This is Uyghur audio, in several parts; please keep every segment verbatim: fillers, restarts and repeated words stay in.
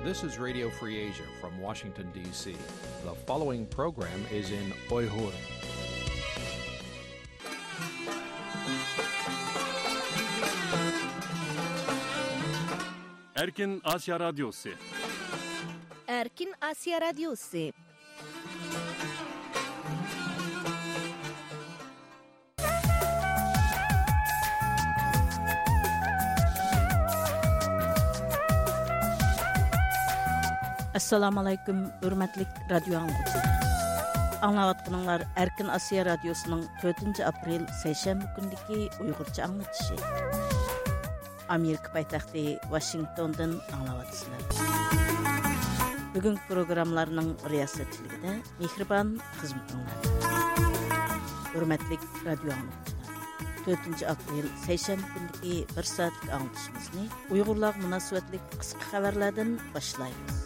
This is Radio Free Asia from Washington, D C. The following program is in Uyghur. Erkin Asya Radyosu. Erkin Asya Radyosu. ئەسسالامۇئەلەيكۇم، ھۆرمەتلىك رادىيو ئاڭلىغۇچىلار. ئاڭلاۋاتقىنىڭلار ئەركىن ئاسىيا رادىيوسىنىڭ تۆتىنچى ئاپرېل سەيشەنبە كۈنىدىكى ئۇيغۇرچە ئاڭلىتىشى. ئامېرىكا پايتەختى ۋاشىنگتوندىن ئاڭلاۋاتىسىلەر. بۈگۈنكى پروگراممىلارنىڭ رىياسەتچىلىكىدە مېھرىبان خىزمىتىڭلاردا. ھۆرمەتلىك رادىيو ئاڭلىغۇچىلار، تۆتىنچى ئاپرېل سەيشەنبە كۈنىدىكى بىر سائەتلىك ئاڭلىتىشىمىزنى ئۇيغۇرلارغا مۇناسىۋەتلىك قىسقا خەۋەرلەردىن باشلايمىز.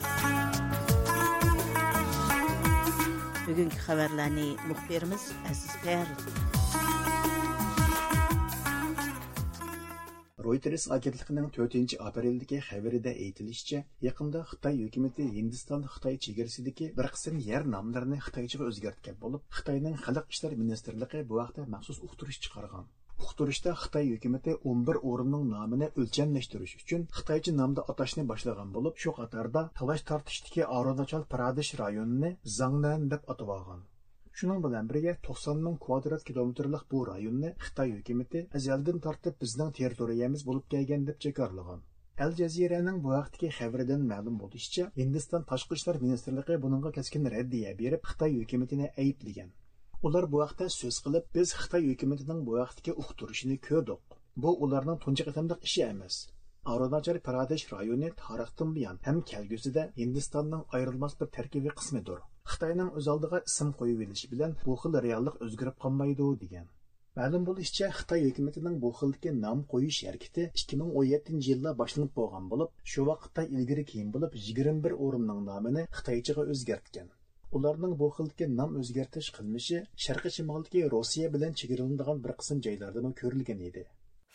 بۈگۈنكى خەۋەرلەرنى مۇخبىرىمىز ئەزىز تەييارلىدى. رويتېرس ئاگېنتلىقىنىڭ تۆتىنچى ئاپرېلدىكى خەۋىرىدە ئېيتىلىشىچە، يېقىندا خىتاي ھۆكۈمىتى ھىندىستان-خىتاي چېگرىسىدىكى بىر قىسىم يەر ناملىرىنى خىتايچىغا ئۆزگەرتكەن بولۇپ، خىتاينىڭ خەلق ئىشلار مىنىستىرلىقى بۇ ھەقتە مەخسۇس ئۇقتۇرۇش چىقارغان. ئۇقتۇرۇشتا خىتاي ھۆكۈمىتى ئون بىر ئورۇننىڭ نامىنى ئۆلچەملەشتۈرۈش ئۈچۈن خىتايچە نامدا ئاتاشنى باشلىغان بولۇپ، شۇ قاتاردا تالاش-تارتىشتىكى ئارۇناچال پرادېش رايونىنى زاڭنەن دەپ ئاتىۋالغان. شۇنىڭ بىلەن بىرگە، توقسان مىڭ كۋادرات كىلومېتىرلىق بۇ رايوننى خىتاي ھۆكۈمىتى ئەزەلدىن تارتىپ بىزنىڭ تېررىتورىيەمىز بولۇپ كەلگەن دەپ جاكارلىغان. ئەل جەزىرەنىڭ بۇ ھەقتىكى خەۋىرىدىن مەلۇم بولۇشىچە، ھىندىستان تاشقى ئىشلار مىنىستىرلىقى بۇنىڭغا كەسكىن رەددىيە بېرىپ، خىتاي ھۆكۈمىتىنى ئەيىبلىگەن. ئۇلار بۇ ھەقتە سۆز قىلىپ، بىز خىتاي ھۆكۈمىتىنىڭ بۇ ھەقتىكى ئۇقتۇرۇشىنى كۆردۇق. بۇ ئۇلارنىڭ تۇنجى قېتىملىق ئىشى ئەمەس. ئارۇناچال پرادېش رايونى تارىختىن بۇيان ھەم كەلگۈسىدە ھىندىستاننىڭ ئايرىلماس بىر تەركىبىي قىسمىدۇر. خىتاينىڭ ئۆز ئالدىغا ئىسىم قويۇۋېلىشى بىلەن بۇ خىل رېئاللىق ئۆزگىرىپ قالمايدۇ، دېگەن. مەلۇم بولۇشىچە، خىتاي ھۆكۈمىتىنىڭ بۇ خىلدىكى نام قويۇش ھەرىكىتى ئىككى مىڭ ئون يەتتىنچى يىلدا باشلىنىپ بولغان بولۇپ، شۇ ۋاقىتتا ئىلگىرى-كېيىن بولۇپ يىگىرمە بىر ئورۇننىڭ نامىنى خىتايچىغا ئۆزگەرتكەن. ئۇلارنىڭ بۇ خىلدىكى نام ئۆزگەرتىش قىلمىشى شەرقىي شىمالدىكى روسىيە بىلەن چېگرىلىنىدىغان بىر قىسىم جايلاردىمۇ كۆرۈلگەن ئىدى.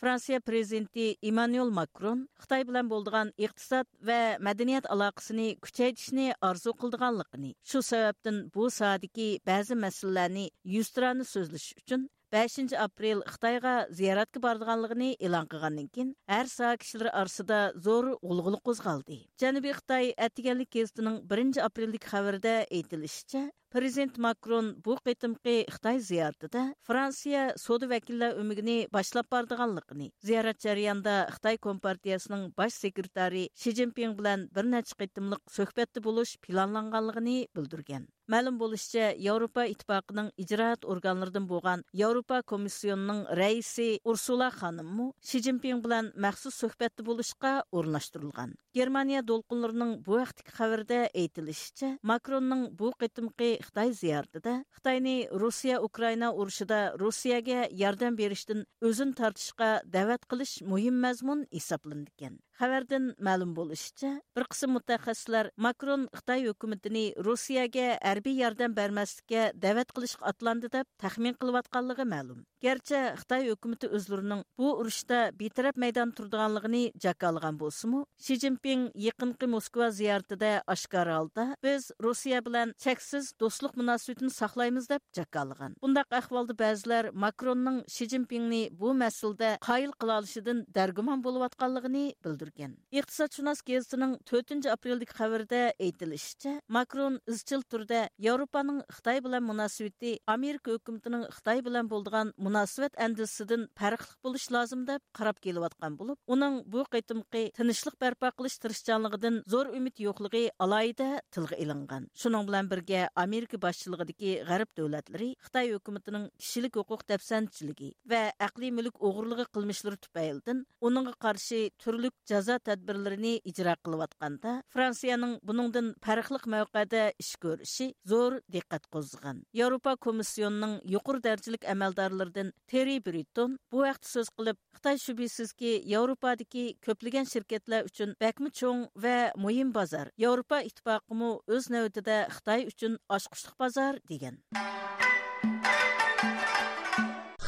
فرانسىيە پرېزىدېنتى ئىممانۇئېل ماكرون خىتاي بىلەن بولىدىغان ئىقتىساد ۋە مەدەنىيەت ئالاقىسىنى كۈچەيتىشنى ئارزۇ قىلىدىغانلىقىنى، شۇ سەۋەبتىن بۇ ساھەدىكى بەزى مەسىلىلەرنى يۈزتۇرانە سۆزلىشىش ئۈچۈن بەشىنچى ئاپرېل خىتايغا زىيارەتكە بارىدىغانلىقىنى ئېلان قىلغاندىن كېيىن، ھەر ساھە كىشىلىرى ئارىسىدا زور غۇلغۇلا قوزغالدى. جەنۇبىي خىتاي ئەتىگەنلىك گېزىتىنىڭ بىرىنچى ئاپرېلدىكى خەۋىرىدە ئېيتىلىشىچە، پرېزىدېنت ماكرون بۇ قېتىمقى خىتاي زىيارىتىدە فرانسىيە سودا ۋەكىللەر ئۆمىكىنى باشلاپ بارىدىغانلىقىنى، زىيارەت جەريانىدا خىتاي كومپارتىيەسىنىڭ باش سېكرېتارى شى جىنپىڭ بىلەن بىر نەچچە قېتىملىق سۆھبەتتە بولۇش پىلانلانغانلىقىنى بىلدۈرگەن. مەلۇم بولۇشىچە، ياۋروپا ئىتتىپاقىنىڭ ئىجرائات ئورگانلىرىدىن بولغان ياۋروپا كومىسسىيونىنىڭ رەئىسى ئۇرسۇلا خانىممۇ شى جىنپىڭ بىلەن مەخسۇس سۆھبەتتە بولۇشقا ئورۇنلاشتۇرۇلغان. گېرمانىيە دولقۇنلىرىنىڭ بۇ ھەقتىكى خەۋىرىدە ئېيتىلىشىچە، ماكروننىڭ بۇ قېتىمقى خىتاي زىيارىتىدە خىتاينى روسىيە-ئۇكرائىنا ئۇرۇشىدا روسىيەگە ياردەم بېرىشتىن ئۆزىنى تارتىشقا دەۋەت قىلىش مۇھىم مەزمۇن ھېسابلىنىدىكەن. خەۋەردىن مەلۇم بولۇشىچە، بىر قىسىم مۇتەخەسسىسلەر ماكرون خىتاي ھۆكۈمىتىنى روسىيەگە ھەربىي ياردەم بەرمەسلىككە دەۋەت قىلىشقا ئاتلاندى دەپ تەخمىن قىلىۋاتقانلىقى مەلۇم. گەرچە خىتاي ھۆكۈمىتى ئۆزلىرىنىڭ بۇ ئۇرۇشتا بىتەرەپ مەيداندا تۇرىدىغانلىقىنى جاكارلىغان بولسىمۇ، شى جىنپىڭ يېقىنقى موسكۋا زىيارىتىدە ئاشكارا ھالدا، بىز روسىيە بىلەن چەكسىز دوستلۇق مۇناسىۋىتىنى ساقلايمىز دەپ جاكارلىغان. بۇنداق ئەھۋالدا بەزىلەر ماكروننىڭ شى جىنپىڭنى بۇ مەسىلىدە قايىل قىلالىشىدىن دەرگۇمان بولۇۋاتقانلىقىنى بىلدۈرگەن. ئىقتىسادشۇناس گېزىتىنىڭ تۆتىنچى ئاپرېلدىكى خەۋىرىدە ئېيتىلىشىچە، ماكرون ئىزچىل تۈردە ياۋروپانىڭ خىتاي بىلەن مۇناسىۋىتى ئامېرىكا ھۆكۈمىتىنىڭ خىتاي بىلەن بولىدىغان مۇناسىۋەت ئەندىزىسىدىن پەرقلىق بولۇشى لازىم دەپ قاراپ كېلىۋاتقان بولۇپ، ئۇنىڭ بۇ قېتىمقى تىنچلىق بەرپا قىلىش تىرىشچانلىقىدىن زور ئۈمىد يوقلۇقى ئالاھىدە تىلغا ئېلىنغان. شۇنىڭ بىلەن بىرگە، ئامېرىكا باشچىلىقىدىكى غەرب دۆلەتلىرى خىتاي ھۆكۈمىتىنىڭ كىشىلىك ھوقۇق دەپسەندىچىلىكى ۋە ئەقلىي مۈلۈك ئوغرىلىقى قىلمىشلىرى تۈپەيلىدىن ئۇنىڭغا قارشى تۈرلۈك جازا تەدبىرلىرىنى ئىجرا قىلىۋاتقاندا، فرانسىيەنىڭ بۇنىڭدىن پەرقلىق مەۋقەدە ئىش كۆرۈشى زور دىققەت قوزغىغان. ياۋروپا كومىسسىيونىنىڭ يۇقىرى دەرىجىلىك ئەمەلدارلىرىدىن تېررى برىتون بۇ ھەقتە سۆز قىلىپ، خىتاي شۈبھىسىزكى ياۋروپادىكى كۆپلىگەن شىركەتلەر ئۈچۈن بەكمۇ چوڭ ۋە مۇھىم بازار، ياۋروپا ئىتتىپاقىمۇ ئۆز نۆۋىتىدە خىتاي ئۈچۈن ئاچقۇچلۇق بازار، دېگەن.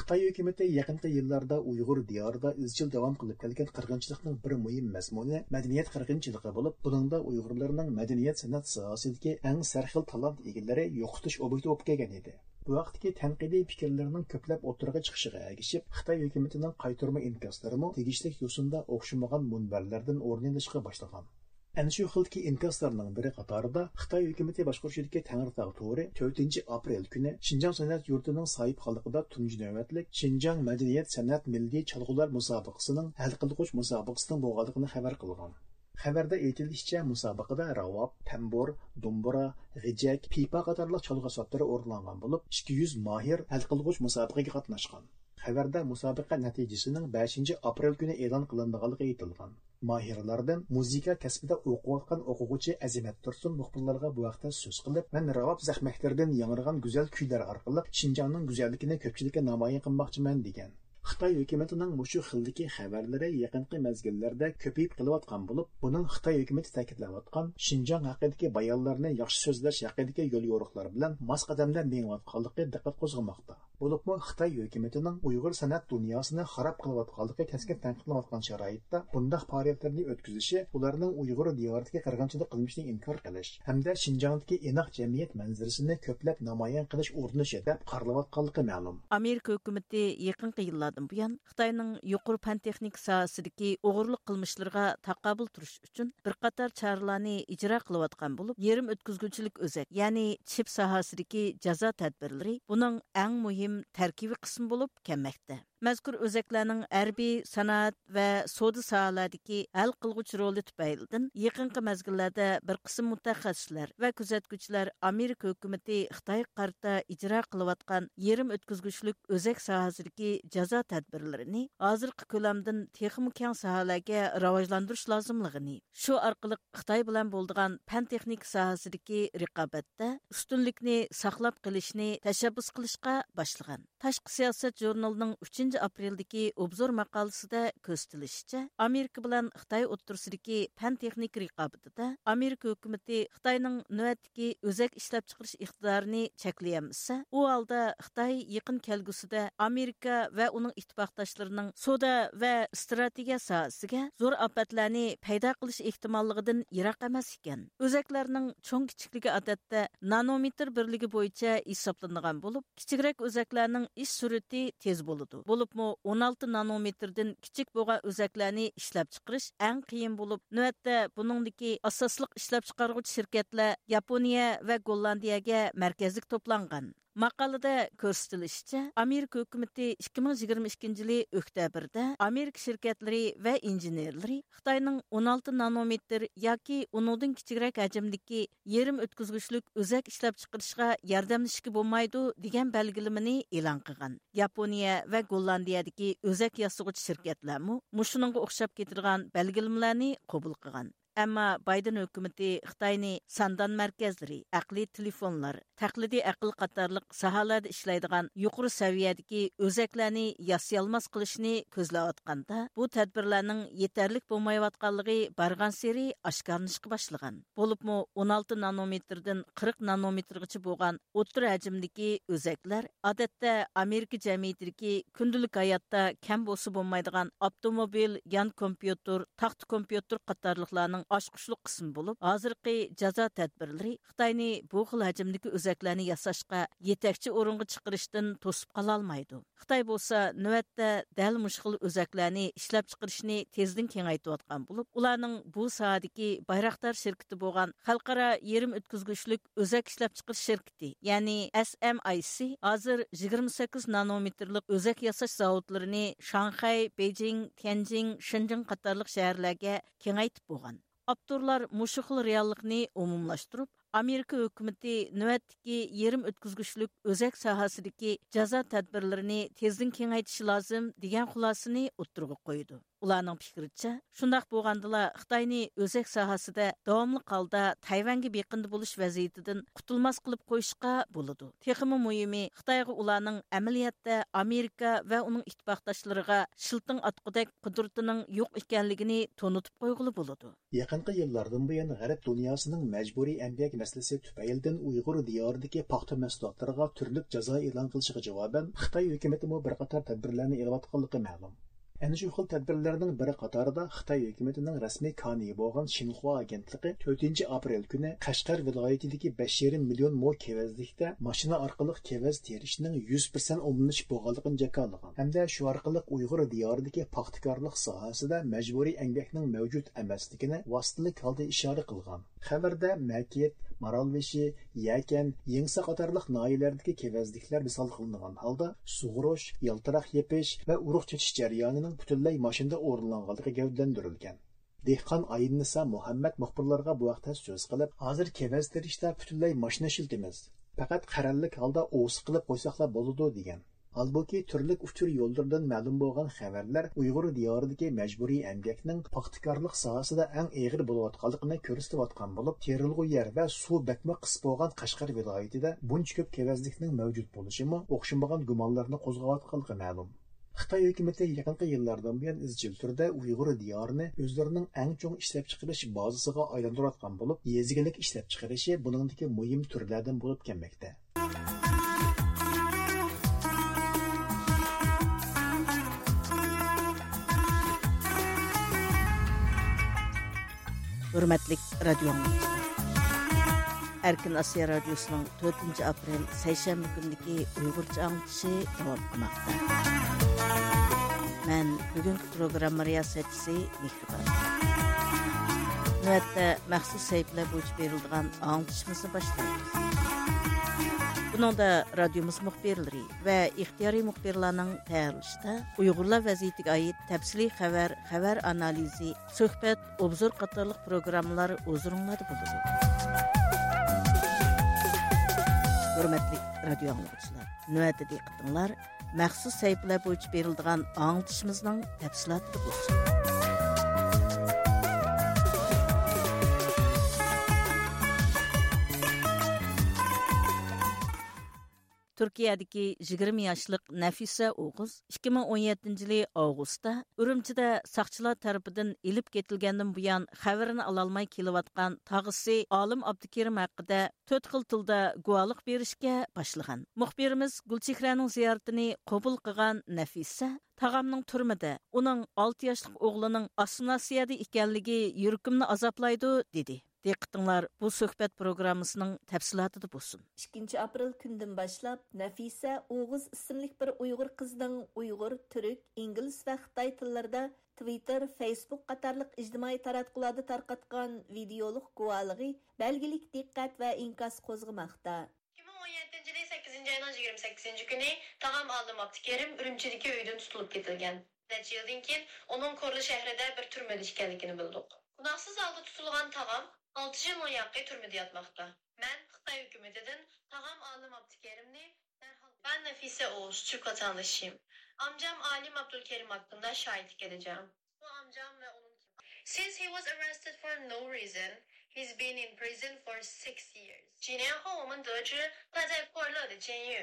خىتاي ھۆكۈمىتى يېقىنقى يىللاردا ئۇيغۇر دىيارىدا ئىزچىل داۋام قىلىپ كەلگەن قىرغىنچىلىقنىڭ بىر مۇھىم مەزمۇنى مەدەنىيەت قىرغىنچىلىقى بولۇپ، بۇنىڭدا ئۇيغۇرلارنىڭ مەدەنىيەت سەنئەت ساھەسىدىكى ئەڭ سەرخىل تالانت ئىگىلىرى يوقىتىش ئوبيېكتى بولۇپ كەلگەن ئىدى. بۇ ھەقتىكى تەنقىدىي پىكىرلەرنىڭ كۆپلەپ ئوتتۇرىغا چىقىشىغا ئەگىشىپ، خىتاي ھۆكۈمىتىنىڭ قايتۇرما ئىنكاسلىرىمۇ تېگىشلىك يوسۇندا ئوخشىمىغان مۇنبەرلەردىن ئورۇن ئېلىشقا باشلىغان. ئەنە شۇ خىلدىكى ئىنكاسلارنىڭ بىرى قاتارىدا خىتاي ھۆكۈمىتى باشقۇرۇشىدىكى تەڭرىتاغ تورى تۆتىنچى ئاپرېل كۈنى شىنجاڭ سەنئەت يۇرتىنىڭ ساھىبخانلىقىدا تۇنجى نۆۋەتلىك شىنجاڭ مەدەنىيەت سەنئەت مىللىي چالغۇلار مۇسابىقىسىنىڭ ھەل قىلغۇچ مۇسابىقىسىنىڭ بولغانلىقىنى خەۋەر قىلغان. خەۋەردە ئېيتىلىشىچە، مۇسابىقىدە راۋاب، تەمبۇر، دومبۇرا، غېجەك، پىپا قاتارلىق چالغۇ ئەسۋابلىرى ئورۇنلانغان بولۇپ، ئىككى يۈز ماھىر ھەل قىلغۇچ مۇسابىقىگە قاتناشقان. خەۋەردە مۇسابىقە نەتىجىسىنىڭ بەشىنچى ئاپرېل كۈنى ئېلان قىلىنىدىغانلىقى ئېيتىلغان. ماھىرلاردىن مۇزىكا كەسپىدە ئوقۇۋاتقان ئوقۇغۇچى ئەزىمەت تۇرسۇن مۇخبىرلارغا بۇ ھەقتە سۆز قىلىپ، مەن راۋاب زەخمەكلىرىدىن ياڭرىغان گۈزەل كۈيلەر ئارقىلىق شىنجاڭنىڭ گۈزەللىكىنى كۆپچىلىككە نامايان قىلماقچىمەن، دېگەن. خىتاي ھۆكۈمىتىنىڭ مۇشۇ خىلدىكى خەۋەرلىرى يېقىنقى مەزگىللەردە كۆپىيىپ قېلىۋاتقان بولۇپ، بۇنىڭ خىتاي ھۆكۈمىتى تەكىتلەۋاتقان شىنجاڭ ھەققىدىكى بايانلارنى ياخشى سۆزلەش ھەققىدىكى يوليورۇقلار بىلەن ماس قەدەمدە مېڭىۋاتقانلىقى دىققەت قوزغىماقتا. بولۇپمۇ خىتاي ھۆكۈمىتىنىڭ ئۇيغۇر سەنئەت دۇنياسىنى خاراب قىلىۋاتقانلىقى كەسكىن تەنقىدلىنىۋاتقان شارائىتتا، بۇنداق پائالىيەتلەرنى ئۆتكۈزۈشى ئۇلارنىڭ ئۇيغۇر دىيارىدىكى قىرغىنچىلىق قىلمىشىنى ئىنكار قىلىش ھەمدە شىنجاڭدىكى ئىناق جەمئىيەت مەنزىرىسىنى كۆپلەپ نامايان قىلىش ئۇرۇنۇشى دەپ قارىلىۋاتقانلىقى مەلۇم. ئامېرىكا ھۆكۈمىتى يېقىنقى يىللاردىن بۇيان خىتاينىڭ يۇقىرى پەن تېخنىكا ساھەسىدىكى ئوغرىلىق قىلمىشلىرىغا تاقابىل تۇرۇش ئۈچۈن بىر قاتار چارىلارنى ئىجرا قىلىۋاتقان بولۇپ، يېرىم ئۆتكۈزگۈچىلىك ئۆزەك، يەنى چىپ ساھەسىدىكى جازا تەدبىرلىرى بۇنىڭ ئەڭ مۇھىم تەركىبىي قىسمى بولۇپ كەلمەكتە. مەزكۇر ئۆزەكلەرنىڭ ھەربىي، سانائەت ۋە سودا ساھەلەردىكى ھەل قىلغۇچ رولى تۈپەيلىدىن، يېقىنقى مەزگىللەردە بىر قىسىم مۇتەخەسسىسلەر ۋە كۆزەتكۈچىلەر ئامېرىكا ھۆكۈمىتى خىتايغا قارىتا ئىجرا قىلىۋاتقان يېرىم ئۆتكۈزگۈچلۈك ئۆزەك ساھەسىدىكى جازا تەدبىرلىرىنى ھازىرقى كۆلەمدىن تېخىمۇ كەڭ ساھەلەرگە راۋاجلاندۇرۇش لازىملىقىنى، شۇ ئارقىلىق خىتاي بىلەن بولىدىغان پەن تېخنىكا ساھەسىدىكى رىقابەتتە ئۈستۈنلۈكنى ساقلاپ قېلىشنى تەشەببۇس قىلىشقا باشلىغان. تاشقى سىياسەت ژۇرنىلىنىڭ ئۈچىنچى ئاپرېلدىكى ئوبزور ماقالىسىدە كۆرسىتىلىشىچە، ئامېرىكا بىلەن خىتاي ئوتتۇرىسىدىكى پەن تېخنىكا رىقابىتىدە ئامېرىكا ھۆكۈمىتى خىتاينىڭ نۆۋەتتىكى ئۆزەك ئىشلەپچىقىرىش ئىقتىدارىنى چەكلىيەلمىسە، ئۇ ھالدا خىتاي يېقىن كەلگۈسىدە ئامېرىكا ۋە ئۇنىڭ ئىتتىپاقداشلىرىنىڭ سودا ۋە ئىستراتېگىيە ساھەسىگە زور ئاپەتلەرنى پەيدا قىلىش ئېھتىماللىقىدىن يىراق ئەمەس ئىكەن. ئۆزەكلەرنىڭ چوڭ كىچىكلىكى ئادەتتە نانومېتىر بىرلىكى بويىچە ھېسابلىنىدىغان بولۇپ، كىچىكرەك ئۆزەكلەرنىڭ ئىش سۈرئىتى تېز بولىدۇ. بولۇپمۇ ئون ئالتە نانومېتىردىن كىچىك بولغان ئۆزەكلەرنى ئىشلەپچىقىرىش ئەڭ قىيىن بولۇپ، نۆۋەتتە بۇنىڭدىكى ئاساسلىق ئىشلەپچىقارغۇچى شىركەتلەر ياپونىيە ۋە گوللاندىيەگە مەركەزلىك توپلانغان. ماقالىدە كۆرسىتىلىشىچە، ئامېرىكا ھۆكۈمىتى ئىككى مىڭ يىگىرمە ئىككىنچى يىلى ئۆكتەبىردە ئامېرىكا شىركەتلىرى ۋە ئىنژېنېرلىرى خىتاينىڭ ئون ئالتە نانومېتىر ياكى ئۇنىڭدىن كىچىكرەك ھەجىمدىكى يېرىم ئۆتكۈزگۈچلۈك ئۆزەك ئىشلەپچىقىرىشقا ياردەملىشىشكە بولمايدۇ، دېگەن بەلگىلىمىنى ئېلان قىلغان. ياپونىيە ۋە گوللاندىيەدىكى ئۆزەك ياسىغۇچى شىركەتلەرمۇ مۇشۇنىڭغا ئوخشاپ كېتىدىغان بەلگىلىمىلەرنى قوبۇل قىلغان. ئەمما بايدېن ھۆكۈمىتى خىتاينى ساندان مەركەزلىرى، ئەقلىي تېلېفونلار، تەقلىدىي ئەقىل قاتارلىق ساھەلەردە ئىشلەيدىغان يۇقىرى سەۋىيەدىكى ئۆزەكلەرنى ياسىيالماس قىلىشنى كۆزلەۋاتقاندا، بۇ تەدبىرلەرنىڭ يېتەرلىك بولمايۋاتقانلىقى بارغانسېرى ئاشكارىلىنىشقا باشلىغان. بولۇپمۇ ئون ئالتە نانومېتىردىن قىرىق نانومېتىرغىچە بولغان ئوتتۇرا ھەجىمدىكى ئۆزەكلەر، ئادەتتە ئامېرىكا جەمئىيىتىدىكى كۈندىلىك ھاياتتا كەم بولسا بولمايدىغان ئاپتوموبىل، يان كومپيۇتېر، تاختا كومپيۇتېر قاتارلىقلارنىڭ ئاچقۇچلۇق قىسمى بولۇپ، ھازىرقى جازا تەدبىرلىرى خىتاينى بۇ خىل ھەجىمدىكى ئۆزەكلەرنى ياساشقا يېتەكچى ئورۇنغا چىقىرىشتىن توسۇپ قالالمايدۇ. خىتاي بولسا نۆۋەتتە دەل مۇشۇ خىل ئۆزەكلەرنى ئىشلەپچىقىرىشنى تېزدىن كېڭەيتىۋاتقان بولۇپ، ئۇلارنىڭ بۇ ساھەدىكى بايراقدار شىركىتى بولغان خەلقئارا يېرىم ئۆتكۈزگۈچلۈك ئۆزەك ئىشلەپچىقىرىش شىركىتى، يەنى ئېس ئېم ئاي سى ھازىر يىگىرمە سەككىز نانومېتىرلىق ئۆزەك ياساش زاۋۇتلىرىنى شاڭخەي، بېيجىڭ، تيەنجىڭ، شېنجېن قاتارلىق شەھەرلەرگە كېڭەيتىپ بولغان. ئاپتورلار مۇشۇ خىل رېئاللىقنى ئومۇملاشتۇرۇپ، ئامېرىكا ھۆكۈمىتى نۆۋەتتىكى يېرىم ئۆتكۈزگۈچلۈك ئۆزەك ساھەسىدىكى جازا تەدبىرلىرىنى تېزدىن كېڭەيتىشى لازىم، دېگەن خۇلاسىنى ئوتتۇرىغا قويىدۇ. ئۇلارنىڭ پىكرىچە، شۇنداق بولغاندىلا خىتاينى ئۆزەك ساھەسىدە داۋاملىق ھالدا تەيۋەنگە بېقىندى بولۇش ۋەزىيىتىدىن قۇتۇلماس قىلىپ قويۇشقا بولىدۇ. تېخىمۇ مۇھىمى، خىتايغا ئۇلارنىڭ ئەمەلىيەتتە ئامېرىكا ۋە ئۇنىڭ ئىتتىپاقداشلىرىغا شىلتىڭ ئاتقۇدەك قۇدرىتىنىڭ يوق ئىكەنلىكىنى تونۇتۇپ قويغىلى بولىدۇ. يېقىنقى يىللاردىن بۇيان، غەرب دۇنياسىنىڭ مەجبۇرىي ئەمگەك مەسىلىسى تۈپەيلىدىن ئۇيغۇر دىيارىدىكى پاختا مەھسۇلاتلىرىغا تۈرلۈك جازا ئېلان قىلىشىغا جاۋابەن، خىتاي ھۆكۈمىتىمۇ بىر قاتار تەدبىرلەرنى ئېلىۋاتقانلىقى مەلۇم. ئەنە شۇ خىل تەدبىرلەرنىڭ بىر قاتارىدا خىتاي ھۆكۈمىتىنىڭ رەسمىي كانىيى بولغان شىنخۇا ئاگېنتلىقى تۆتىنچى ئاپرېل كۈنى قەشقەر ۋىلايىتىدىكى بەش يېرىم مىليون مو كېۋەزلىكتە ماشىنا ئارقىلىق كېۋەز تېرىشنىڭ يۈز پىرسەنت ئومۇملىشىپ بولغانلىقىنى جاكارلىغان ھەمدە شۇ ئارقىلىق ئۇيغۇر دىيارىدىكى پاختىكارلىق ساھەسىدە مەجبۇرىي ئەمگەكنىڭ مەۋجۇت ئەمەسلىكىنى ۋاسىتىلىك ھالدا ئىشارە قىلغان. خەۋەردە مەكىت، مارالبېشى، يەكەن، يېڭىسا قاتارلىق ناھىيەلەردىكى كېۋەزلىكلەر مىسال قىلىنغان ھالدا، سۇغۇرۇش، يالتىراق يېپىش ۋە ئۇرۇق چېچىش جەريانىنىڭ پۈتۈنلەي ماشىنىدا ئورۇنلانغانلىقى گەۋدىلەندۈرۈلگەن. دېھقان ئاينىسا مۇھەممەد مۇخبىرلارغا بۇ ھەقتە سۆز قىلىپ، ھازىر كېۋەز تېرىشتا پۈتۈنلەي ماشىنا ئىشلىتىمىز. پەقەت قەرەللىك ھالدا ئوۋسى قىلىپ قويساقلا بولىدۇ، دېگەن. ھالبۇكى، تۈرلۈك ئۇچۇر يوللىرىدىن مەلۇم بولغان خەۋەرلەر ئۇيغۇر دىيارىدىكى مەجبۇرىي ئەمگەكنىڭ پاختىكارلىق ساھەسىدە ئەڭ ئېغىر بولۇۋاتقانلىقىنى كۆرسىتىۋاتقان بولۇپ، تېرىلغۇ يەر ۋە سۇ بەكمۇ قىس بولغان قەشقەر ۋىلايىتىدە بۇنچە كۆپ كېۋەزلىكنىڭ مەۋجۇت بولۇشىمۇ ئوخشىمىغان گۇمانلارنى قوزغاۋاتقانلىقى مەلۇم. خىتاي ھۆكۈمىتى يېقىنقى يىللاردىن بۇيان ئىزچىل تۈردە ئۇيغۇر دىيارىنى ئۆزلىرىنىڭ ئەڭ چوڭ ئىشلەپچىقىرىش بازىسىغا ئايلاندۇرۇۋاتقان بولۇپ، يېزا ئىگىلىك ئىشلەپچىقىرىشى بۇنىڭدىكى مۇھىم تۈرلەردىن بولۇپ كەلمەكتە. ھۆرمەتلىك رادىيو ئاڭلىغۇچىلار، ئەركىن ئاسىيا رادىيوسىنىڭ تۆتىنچى ئاپرېل سەيشەنبە كۈنىدىكى ئۇيغۇرچە ئاڭلىتىشى داۋام قىلماقتا. مەن بۈگۈنكى پروگرامما رىياسەتچىسى مېھرىبان. نۆۋەتتە مەخسۇس سەھىپىلەر بويىچە بېرىلىدىغان ئاڭلىتىشىمىزنى باشلايمىز. بۇنىڭدا رادىيومىز مۇخبىرلىرى ۋە ئىختىيارىي مۇخبىرلارنىڭ تەييارلىشىدا ئۇيغۇرلار ۋەزىيىتىگە ئائىت تەپسىلىي خەۋەر، خەۋەر ئانالىزى، سۆھبەت، ئوبزور قاتارلىق پروگراممىلار ھۇزۇرۇڭلاردا بولىدۇ. ھۆرمەتلىك رادىيو ئاڭلىغۇچىلار، نۆۋەتتە دىققىتىڭلار مەخسۇس سەھىپىلەر بويىچە بېرىلىدىغان ئاڭلىتىشىمىزنىڭ تەپسىلاتىدا بولسۇن. تۈركىيەدىكى يىگىرمە ياشلىق نەفىسە ئوغۇز ئىككى مىڭ ئون يەتتىنچى يىلى ئاۋغۇستتا ئۈرۈمچىدە ساقچىلار تەرىپىدىن ئېلىپ كېتىلگەندىن بۇيان خەۋىرىنى ئالالماي كېلىۋاتقان تاغىسى ئالىم ئابدۇكېرىم ھەققىدە تۆت خىل تىلدا گۇۋاھلىق بېرىشكە باشلىغان. مۇخبىرىمىز گۈلچېھرەنىڭ زىيارىتىنى قوبۇل قىلغان نەفىسە تاغامنىڭ تۈرمىدە، ئۇنىڭ ئالتە ياشلىق ئوغلىنىڭ ئاسسىمىلياتسىيەدە ئىكەنلىكى يۈرىكىمنى ئازابلايدۇ، دېدى. دىققىتىڭلار بۇ سۆھبەت پروگراممىسىنىڭ تەپسىلاتىدا بولسۇن. ئىككىنچى ئاپرېل كۈنىدىن باشلاپ نەفىسە ئوغۇز ئىسىملىك بىر ئۇيغۇر قىزنىڭ ئۇيغۇر، تۈرك، ئىنگلىز ۋە خىتاي تىللىرىدا تۋىتتېر، فېيسبۇك قاتارلىق ئىجتىمائىي تاراتقۇلاردا تارقاتقان ۋىدېئولۇق گۇۋاھلىقى بەلگىلىك دىققەت ۋە ئىنكاس قوزغىماقتا. ئىككى مىڭ ئون يەتتىنچى يىلى سەككىزىنچى ئاينىڭ يىگىرمە سەككىزىنچى كۈنى تاغام ئالىم ئابدۇكېرىم ئۈرۈمچىدىكى ئۆيىدىن تۇتۇلۇپ كېتىلگەن. نەچچە يىلدىن كېيىن ئۇنىڭ كورلا شەھىرىدە بىر تۈرمىدە ئىكەنلىكىنى بىلدۇق. گۇناھسىز ھالدا تۇتۇلغان تاغام ئالتە يىل مۇياقى تۈرمىدە ياتماقتا. مەن خىتاي ھۆكۈمىتىدىن تاغام ئالىم ئابدۇكېرىمنى دەرھال. Ben Nafise Oğuz, Türk vatandaşıyım. Amcam Alim Abdülkerim hakkında şahitlik edeceğim. Bu amcam ve onun. Since he was arrested for no reason, he's been in prison for six years. 几年后，我们得知他在过勒的监狱。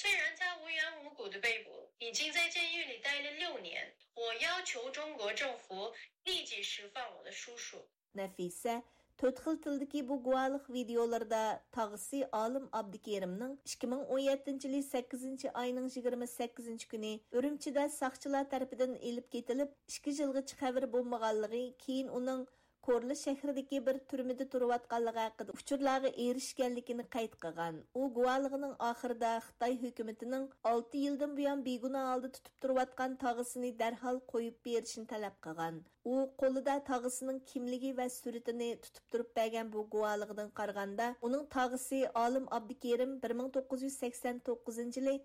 虽然他无缘无故的被捕，已经在监狱里待了六年。我要求中国政府立即释放我的叔叔。 نەفىسە تۆت خىل تىلدىكى بۇ گۇۋاھلىق ۋىدېئولىرىدا تاغىسى ئالىم ئابدۇكېرىمنىڭ ئىككى مىڭ ئون يەتتىنچى يىلى سەككىزىنچى ئاينىڭ يىگىرمە سەككىزىنچى كۈنى ئۈرۈمچىدە ساقچىلار تەرىپىدىن ئېلىپ كېتىلىپ، ئىككى يىلغىچە خەۋىرى بولمىغانلىقى، كېيىن ئۇنىڭ كورلا شەھىرىدىكى بىر تۈرمىدە تۇرۇۋاتقانلىقى ھەققىدە ئۇچۇرلارغا ئېرىشكەنلىكىنى قەيت قىلغان. ئۇ گۇۋاھلىقىنىڭ ئاخىرىدا خىتاي ھۆكۈمىتىنىڭ ئالتە يىلدىن بۇيان بىگۇناھ ھالدا تۇتۇپ تۇرۇۋاتقان تاغىسىنى دەرھال قويۇپ بېرىشنى تەلەپ قىلغان. ئۇ قولىدا تاغىسىنىڭ كىملىكى ۋە سۈرىتىنى تۇتۇپ تۇرۇپ بەرگەن بۇ گۇۋاھلىقىدىن قارىغاندا، ئۇنىڭ تاغىسى ئالىم ئابدۇكېرىم بىر مىڭ توققۇز يۈز سەكسەن توققۇزىنچى يىلى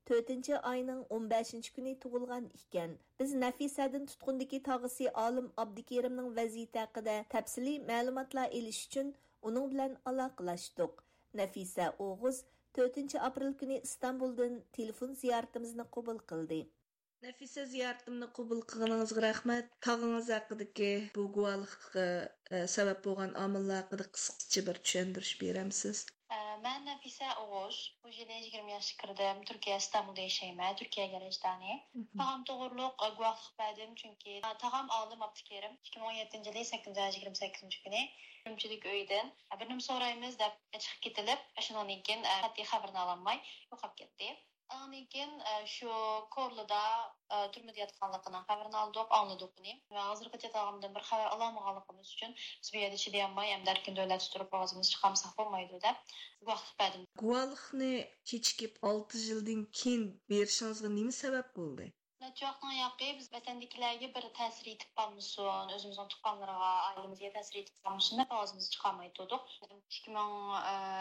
تۆتىنچى ئاينىڭ ئون بەشىنچى كۈنى تۇغۇلغان ئىكەن. بىز نەفىسەدىن تۇتقۇندىكى تاغىسى ئالىم ئابدۇكېرىمنىڭ ۋەزىيىتى ھەققىدە تەپسىلىي مەلۇماتلار ئېلىش ئۈچۈن ئۇنىڭ بىلەن ئالاقىلاشتۇق. نەفىسە ئوغۇز تۆتىنچى ئاپرېل كۈنى ئىستانبۇلدىن تېلېفون زىيارىتىمىزنى قوبۇل قىلدى. نەفىسە، زىيارىتىمنى قوبۇل قىلغىنىڭىزغا رەھمەت. تاغىڭىز ھەققىدىكى بۇ گۇۋاھلىققا، ئە، سەۋەب بولغان ئامىللار ھەققىدە قىسقىچە بىر چۈشەندۈرۈش بېرەمسىز؟ ئە، مەن نەفىسە ئوغۇز. بۇ يىلى يىگىرمە ياشقا كىردىم. تۈركىيە، ئىستانبۇلدا ياشايمەن. تۈركىيەگە ھەج دانى. مھم. تاغام توغرۇلۇق، ئە، گۇۋاھلىق بەردىم، چۈنكى، ئە، تاغام ئالىم ئابدۇكېرىم. ئىككى مىڭ ئون يەتتىنچى يىلى سەككىزىنچى ئاي يىگىرمە سەككىزىنچى كۈنى ئۈرۈمچىدىكى ئۆيدىن، ئە، بىر نېمە سورايمىز دەپ چىقىپ كېتىلىپ، شۇنىڭدىن كېيىن، ئە، قەتئىي خەۋىرىنى ئالالماي يوقاپ كەتتى. ئاندىن كېيىن، ئە، شۇ كورلىدا، ئە، تۈرمىدە ياتقانلىقىنىڭ خەۋىرىنى ئالدۇق، ئاڭلىدۇق ئۇنى. ۋە ھازىرغىچە تاغامدىن بىر خەۋەر ئالالمىغانلىقىمىز ئۈچۈن، بىز بۇ يەردە چىدىيالماي، ئەمدى ئەركىن دۆلەتتە تۇرۇپ ئاۋازىمىزنى چىقارمىساق بولمايدۇ، دەپ گۇۋاھلىق بەردىم. گۇۋاھلىقنى كېچىكىپ ئالتە يىلدىن كېيىن بېرىشىڭىزغا نېمە سەۋەب بولدى؟ نەچچە ۋاقىتنىڭ ياقى بىز ۋەتەندىكىلەرگە بىر تەسىر يېتىپ قالمىسۇن، ئۆزىمىزنىڭ تۇغقانلىرىغا، ئائىلىمىزگە تەسىر يېتىپ قالمىسۇن دەپ ئاۋازىمىزنى چىقارماي تۇردۇق. ئىككى مىڭ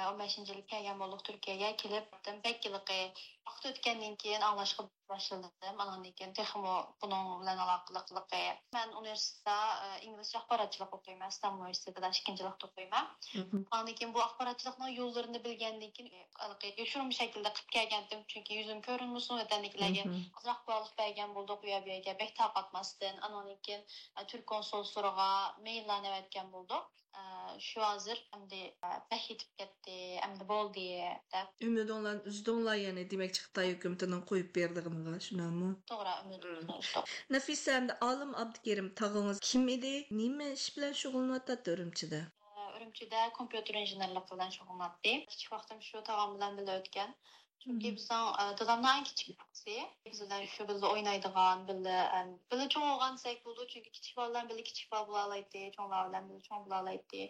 ئون بەشىنچى يىلى كەلگەن بولدۇق تۈركىيەگە. كېلىپ بەك ھېلىقى ۋاقىت ئۆتكەندىن كېيىن ئاڭلاشقا باشلىدىم. ئانىڭدىن كېيىن تېخىمۇ بۇنىڭ بىلەن ئالاقىلىقلىقى. مەن ئۇنىۋېرسىتېتتا، ئە، ئىنگلىزچە ئاخباراتچىلىق ئوقۇيمەن، ئىستانبۇل ئۇنىۋېرسىتېتىدا ئىككىنچى يىللىقتا ئوقۇيمەن. مھم. ئاندىن كېيىن بۇ ئاخباراتچىلىقنىڭ يوللىرىنى بىلگەندىن كېيىن، ھېلىقى يوشۇرۇن شەكىلدە قىلىپ كەلگەنتىم، چۈنكى يۈزۈم كۆرۈنمىسۇن، ۋەتەندىكىلەرگە مھم. ئازراق گۇۋاھلىق بەرگەن بولدۇق، ئۇ يەر بۇ يەرگە بەك تارقاتماستىن. ئانىڭدىن كېيىن، ئە، تۈرك كونسۇللۇقلىرىغا مېيللارنى ئەۋەتكەن بولدۇق. ئە، شۇ ھازىر ئەمدى، ئە، بەك يېتىپ كەتتى، ئەمدى بولدى دەپ. ئۈمىدىڭلارنى ئۈزدۈڭلار، يەنى دېمەكچى خىتاي ھۆكۈمىتىنىڭ قويۇپ بېرىدىغىنىغا، شۇنداقمۇ؟ توغرا، ئۈمىدىمىزنى ئۈزدۇق. نەفىسە، ئەمدى ئالىم ئابدۇكېرىم تاغىڭىز كىم ئىدى؟ نېمە ئىش بىلەن شۇغۇللىنىۋاتاتتى ئۈرۈمچىدە؟ ئە، ئۈرۈمچىدە كومپيۇتېر ئىنژېنېرلىقى بىلەن شۇغۇللىناتتى. كىچىك ۋاقتىم شۇ تاغام بىلەن بىللە ئۆتكەن. چۈنكى مم. بىزنىڭ، ئە، دادامنىڭ ئەڭ كىچىك بالىسى. بىز بىلەن شۇ بىللە ئوينايدىغان، بىللە، ئەم، بىللە چوڭ بولغان دېسەك بولىدۇ، چۈنكى كىچىك بالىلار بىلەن بىللە كىچىك بالا بولالايتتى، چوڭلار بىلەن بىللە چوڭ بولالايتتى.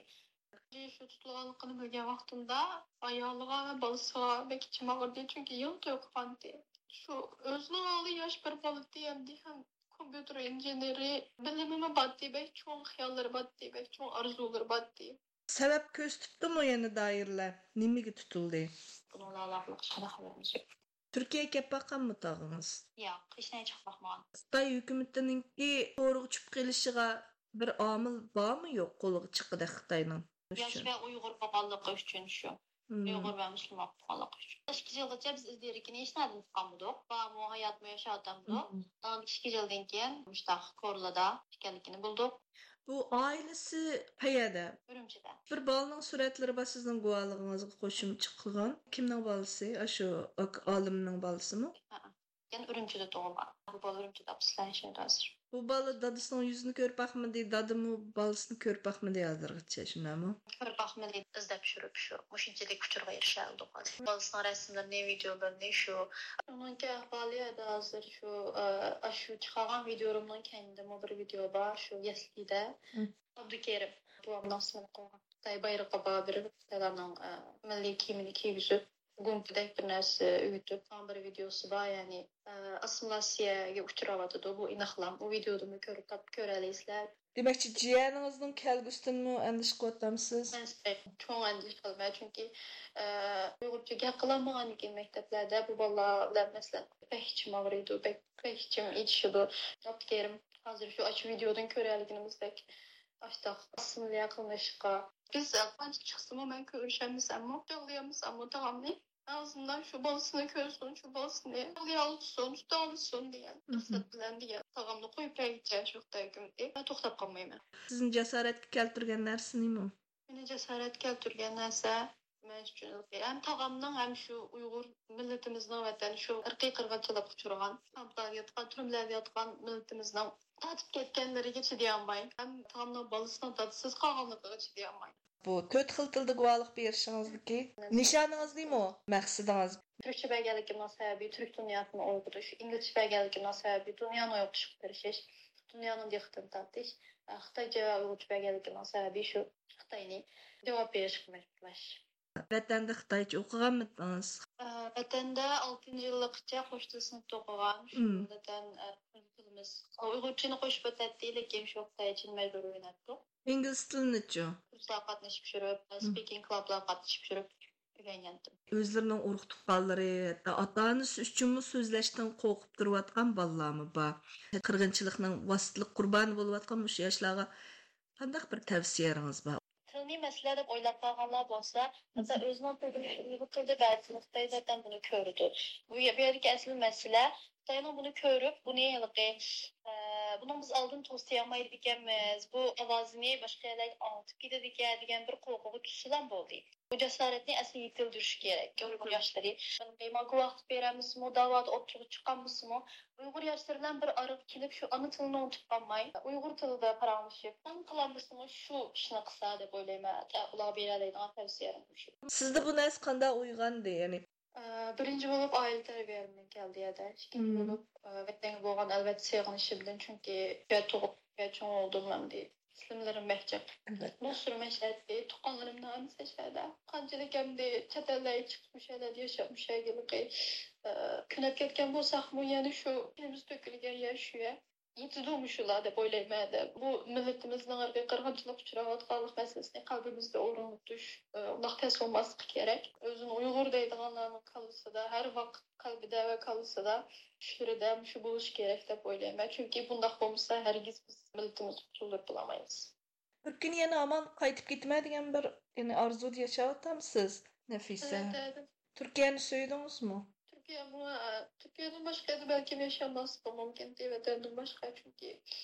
شۇ تۇتۇلغانلىقىنى بىلگەن ۋاقتىمدا ئايالىغا ۋە بالىسىغا بەك ئىچىم ئاغرىدى، چۈنكى يېڭى توي قىلغانتى. شۇ ئۆزىنىڭ ئالدىدا ياش بىر بالىتى، ئەمدى ھەم كومپيۇتېر ئىنژېنېرى، بىلىمىمۇ باتتى، بەك چوڭ خىياللىرى باتتى، بەك چوڭ ئارزۇلىرى باتتى. سەۋەب كۆرسىتىپتۇمۇ يەنە دائىرىلەر؟ نېمىگە تۇتۇلدى؟ بۇنىڭ بىلەن ئالاقىلىق ھېچقانداق خەۋىرىمىز يوق. تۈركىيەگە كەپ باققانمۇ تاغىڭىز؟ ياق، ھېچنەگە چىقىپ باقمىغان. خىتاي ھۆكۈمىتىنىڭكى تورغا چۈشۈپ قېلىشىغا بىر ئامىل بارمۇ يوق، قولىغا چىققۇدەك خىتاينىڭ؟ ياش ۋە ئۇيغۇر بولغانلىقى ئۈچۈن شۇ. مم. ئۇيغۇر ۋە مۇسۇلمان بولغانلىقى ئۈچۈن. ئىككى يىلغىچە بىز ئىز دېرىكىنى ھېچنەدىن تاپقانمىدۇق. بارمۇ، ھاياتمۇ، ياشاۋاتامدۇ؟ مم. ئاندىن ئىككى يىلدىن كېيىن مۇشتاق كورلىدا ئىكەنلىكىنى بىلدۇق. بۇ ئائىلىسى قەيەردە؟ ئۈرۈمچىدە. بىر بالىنىڭ سۈرەتلىرى بار سىزنىڭ گۇۋاھلىقىڭىزغا قوشۇمچە قىلغان. كىمنىڭ بالىسى؟ ئاشۇ ئاك-، ئالىمنىڭ بالىسىمۇ؟ ھەئە. يەنە ئۈرۈمچىدە تۇغۇلغان. بۇ بالا ئۈرۈمچىدە ئاپىسى بىلەن ياشايدۇ ھازىر. بۇ بالا دادىسىنىڭ يۈزىنى كۆرۈپ باقمىدى، دادىمۇ بالىسىنى كۆرۈپ باقمىدى ھازىرغىچە، شۇنداقمۇ؟ كۆرۈپ باقمىدى، ئىزدەپ يۈرۈپ شۇ مۇشۇنچىلىك ئۇچۇرغا ئېرىشەلدۇق ھازىر. بالىسىنىڭ رەسىملىرىنى، ۋىدىيولىرىنى شۇ. ئۇنىڭكى ئەھۋالى ھازىر شۇ، ئە، ئاشۇ چىقارغان ۋىدىيولىرىمنىڭ كەينىدىمۇ بىر ۋىدىيو بار، شۇ يەسلىدە. مم. ئابدۇكېرىم بوۋامنىڭ ئىسمىنى قويغان. خىتاي بايرىقى بار بىر، خىتايلارنىڭ، ئە، مىللىي كىيىمىنى كىيگۈزۈپ، گۇمپىدەك بىر نەرسە ئۆگىتىپ، ماڭا بىر ۋىدىيوسى بار، يەنى، ئە، ئاسسىمىلياتسىيەگە ئۇچراۋاتىدۇ. بۇ ئىناقلام. ئۇ ۋىدىيودىنمۇ كۆرۈپ تاپ-، كۆرەلەيسىلەر. دېمەكچى، جىيەنىڭىزنىڭ كەلگۈسىدىنمۇ ئەندىشە قىلىۋاتامسىز؟ مەن چوڭ ئەندىشە قىلىمەن، چۈنكى، ئە، ئۇيغۇرچە گەپ قىلالمىغاندىكىن مەكتەپلەردە بۇ بالىلار بىلەن، مەسىلەن، بەك ئىچىم ئاغرىيدۇ، بەك، بەك ئىچىم ئېچىشىدۇ. ئابدۇكېرىم، ھازىر شۇ ئاشۇ ۋىدىيودىن كۆرەلىگىنىمىزدەك، ئاشتاق ئاسسىمىليە قىلىنىشقا. بىز قانچە چىقسىمۇ، مەن كۆرۈشەلمىسەممۇ، يىغلىيالمىساممۇ تاغامنى، ئازىندىن شۇ بالىسىنى كۆرسۇن، شۇ بالىسىنى يىغلىيالسۇن، تۇتالىسۇن دېگەن مھم. مەقسەت بىلەن دېگەن. تاغامنى قويۇپ بەرگۈچە شۇ خىتاي ھۆكۈمىتى، مەن توختاپ قالمايمەن. سىزنى جاسارەتكە كەلتۈرگەن نەرسە نېمە؟ مېنى جاسارەتكە كەلتۈرگەن نەرسە، مەن ئۈچۈن ھەم تاغامنىڭ، ھەم شۇ ئۇيغۇر مىللىتىمىزنىڭ ۋەتەن شۇ ئىرقىي قىرغىنچىلىققا ئۇچرىغان، كامپلاردا ياتقان، تۈرمىلەردە ياتقان مىللىتىمىزنىڭ تارتىپ كەتكەنلىرىگە چىدىيالماي، ھەم تاغامنىڭ بالىسىنىڭ دادىسىز قالغانلىقىغا چىدىيالماي. بۇ تۆت خىل تىلدا گۇۋاھلىق بېرىشىڭىزدىكى نىشانىڭىز نېمە؟ مەقسىتىڭىز؟ تۈركچە بەرگەنلىكىمنىڭ سەۋەبى تۈرك دۇنياسىنى ئويغىتىش، ئىنگلىزچە بەرگەنلىكىمنىڭ سەۋەبى دۇنيانى ئويغىتىشقا تىرىشىش، دۇنيانىڭ دىققىتىنى تارتىش، خىتايچە ۋە ئۇيغۇرچە بەرگەنلىكىمنىڭ سەۋەبى شۇ خىتاينى جاۋاب بېرىشقا مەجبۇرلاش. ۋەتەندە خىتايچە ئوقۇغانمىدىڭىز؟ ئە، ۋەتەندە ئالتىنچى يىللىقىچە قوش تىل سىنىپتا ئوقۇغان. شۇ مم. ۋەتەن، ئە، تىلىمىز ئۇيغۇرچىنى قوشۇپ ئۆتەتتى، لېكىن شۇ خىتايچىنى مەجبۇرىي ئۆگىنەتتۇق. ئىنگلىز تىلىنىچۇ؟ كۇرسلارغا قاتنىشىپ يۈرۈپ، مم. سپىكىنگ كلابلارغا قاتنىشىپ يۈرۈپ ئۆگەنگەنتىم. ئۆزلىرىنىڭ ئۇرۇق-تۇغقانلىرى، ھەتتا ئاتا-ئانىسى ئۈچۈنمۇ سۆزلەشتىن قورقۇپ تۇرۇۋاتقان بالىلارمۇ بار. قىرغىنچىلىقنىڭ ۋاسىتىلىك قۇربانى بولۇۋاتقان مۇشۇ ياشلارغا قانداق بىر تەۋسىيەلىرىڭىز بار؟ تىلنى مەسىلە دەپ ئويلاپ قالغانلار بولسا، ھەتتا ئۆزىنىڭ تىلىنى ئۇيغۇر تىلىدا بەزى نۇقتىدا زاتەن بۇنى كۆرىدۇ. بۇ يە-، بۇ يەردىكى ئەسلى مەسىلە خىتاينىڭ بۇنى كۆرۈپ، بۇنى ھېلىقى، ئە، بۇنىڭ بىز ئالدىنى توسىيالمايدىكەنمىز، بۇ ئاۋازىنى باشقا يەرلەرگە ئاڭلىتىپ كېتىدىكەن دېگەن بىر قورقۇغا چۈشسىلەم بولدى. بۇ جاسارەتنى ئەسلى يېتىلدۈرۈش كېرەك، ئۇيغۇر ياشلىرى. ماڭا گۇۋاھلىق بېرەلمىسىمۇ، داۋادا ئوتتۇرىغا چىقالمىسىمۇ، ئۇيغۇر ياشلىرى بىلەن بىر ئارىغا كېلىپ، شۇ ئانا تىلىنى ئۇنتۇپ قالماي، ئۇيغۇر تىلىدا پاراڭلىشىپ، تاڭ قىلالمىسىمۇ، شۇ ئىشنى قىلسا دەپ ئويلايمەن. ئۇلارغا بېرەلەيدىغان تەۋسىيەلىرىم شۇ. سىزدە بۇ نەرسە قانداق ئويغاندى؟ يەنى، ئە، بىرىنچى بولۇپ ئائىلە تەربىيەلىرىمدىن كەلدى يەدە. ئىككىنچى بولۇپ، ئە، ۋەتەنگە بولغان ئەلۋەتتە سېغىنىشىمدىن، چۈنكى شۇ يەردە تۇغۇپ، شۇ يەردە چوڭ بولدۇم ئەمدى. ئىسىملىرىم مەھجەپ. ئەلۋەتتە. دوستلىرىم مەشەدە، تۇغقانلىرىم ھەممىسى شەدە. قانچىلىك ئەمدى چەت ئەللەرگە چىقىپ، مۇشۇ يەرلەردە ياشاپ، مۇشۇ يەرگە ھېلىقى، ئە، كۆنۈپ كەتكەن بولساقمۇ، يەنە شۇ قېنىمىز تۆكۈلگەن يەر شۇ يەر. يېتىدۇ مۇشۇلار دەپ ئويلايمەن دە. بۇ مىللىتىمىزنىڭ ھەربىي قىرغىنچىلىققا ئۇچراۋاتقانلىق مەسىلىسىنى قەلبىمىزدە ئورۇن تۇتۇش، ئۇنداق تەس بولماسلىقى كېرەك. ئۆزىنى ئۇيغۇر دەيدىغانلارنىڭ كاللىسىدا، ھەر ۋاقىت قەلبىدە ۋە كاللىسىدا، چۈشلىرىدە مۇشۇ بولۇشى كېرەك دەپ ئويلايمەن. چۈنكى بۇنداق بولمىسا، ھەرگىز بىز مىللىتىمىزنى قۇتۇلدۇرۇپ بولالمايمىز. بىر كۈنى يەنە ھامان قايتىپ كېتىمەن دېگەن بىر، يەنى ئارزۇدا ياشاۋاتامسىز، نەفىسە؟ ئەلۋەتتە. تۈركىيەنى سۆيدىڭىزمۇ؟ تۈركىيەمۇ، ئە، تۈركىيەدىن باشقا يەردە بەلكىم ياشىيالماسلىقىم مۇمكىن، ۋەتەندىن باشقا، چۈنكى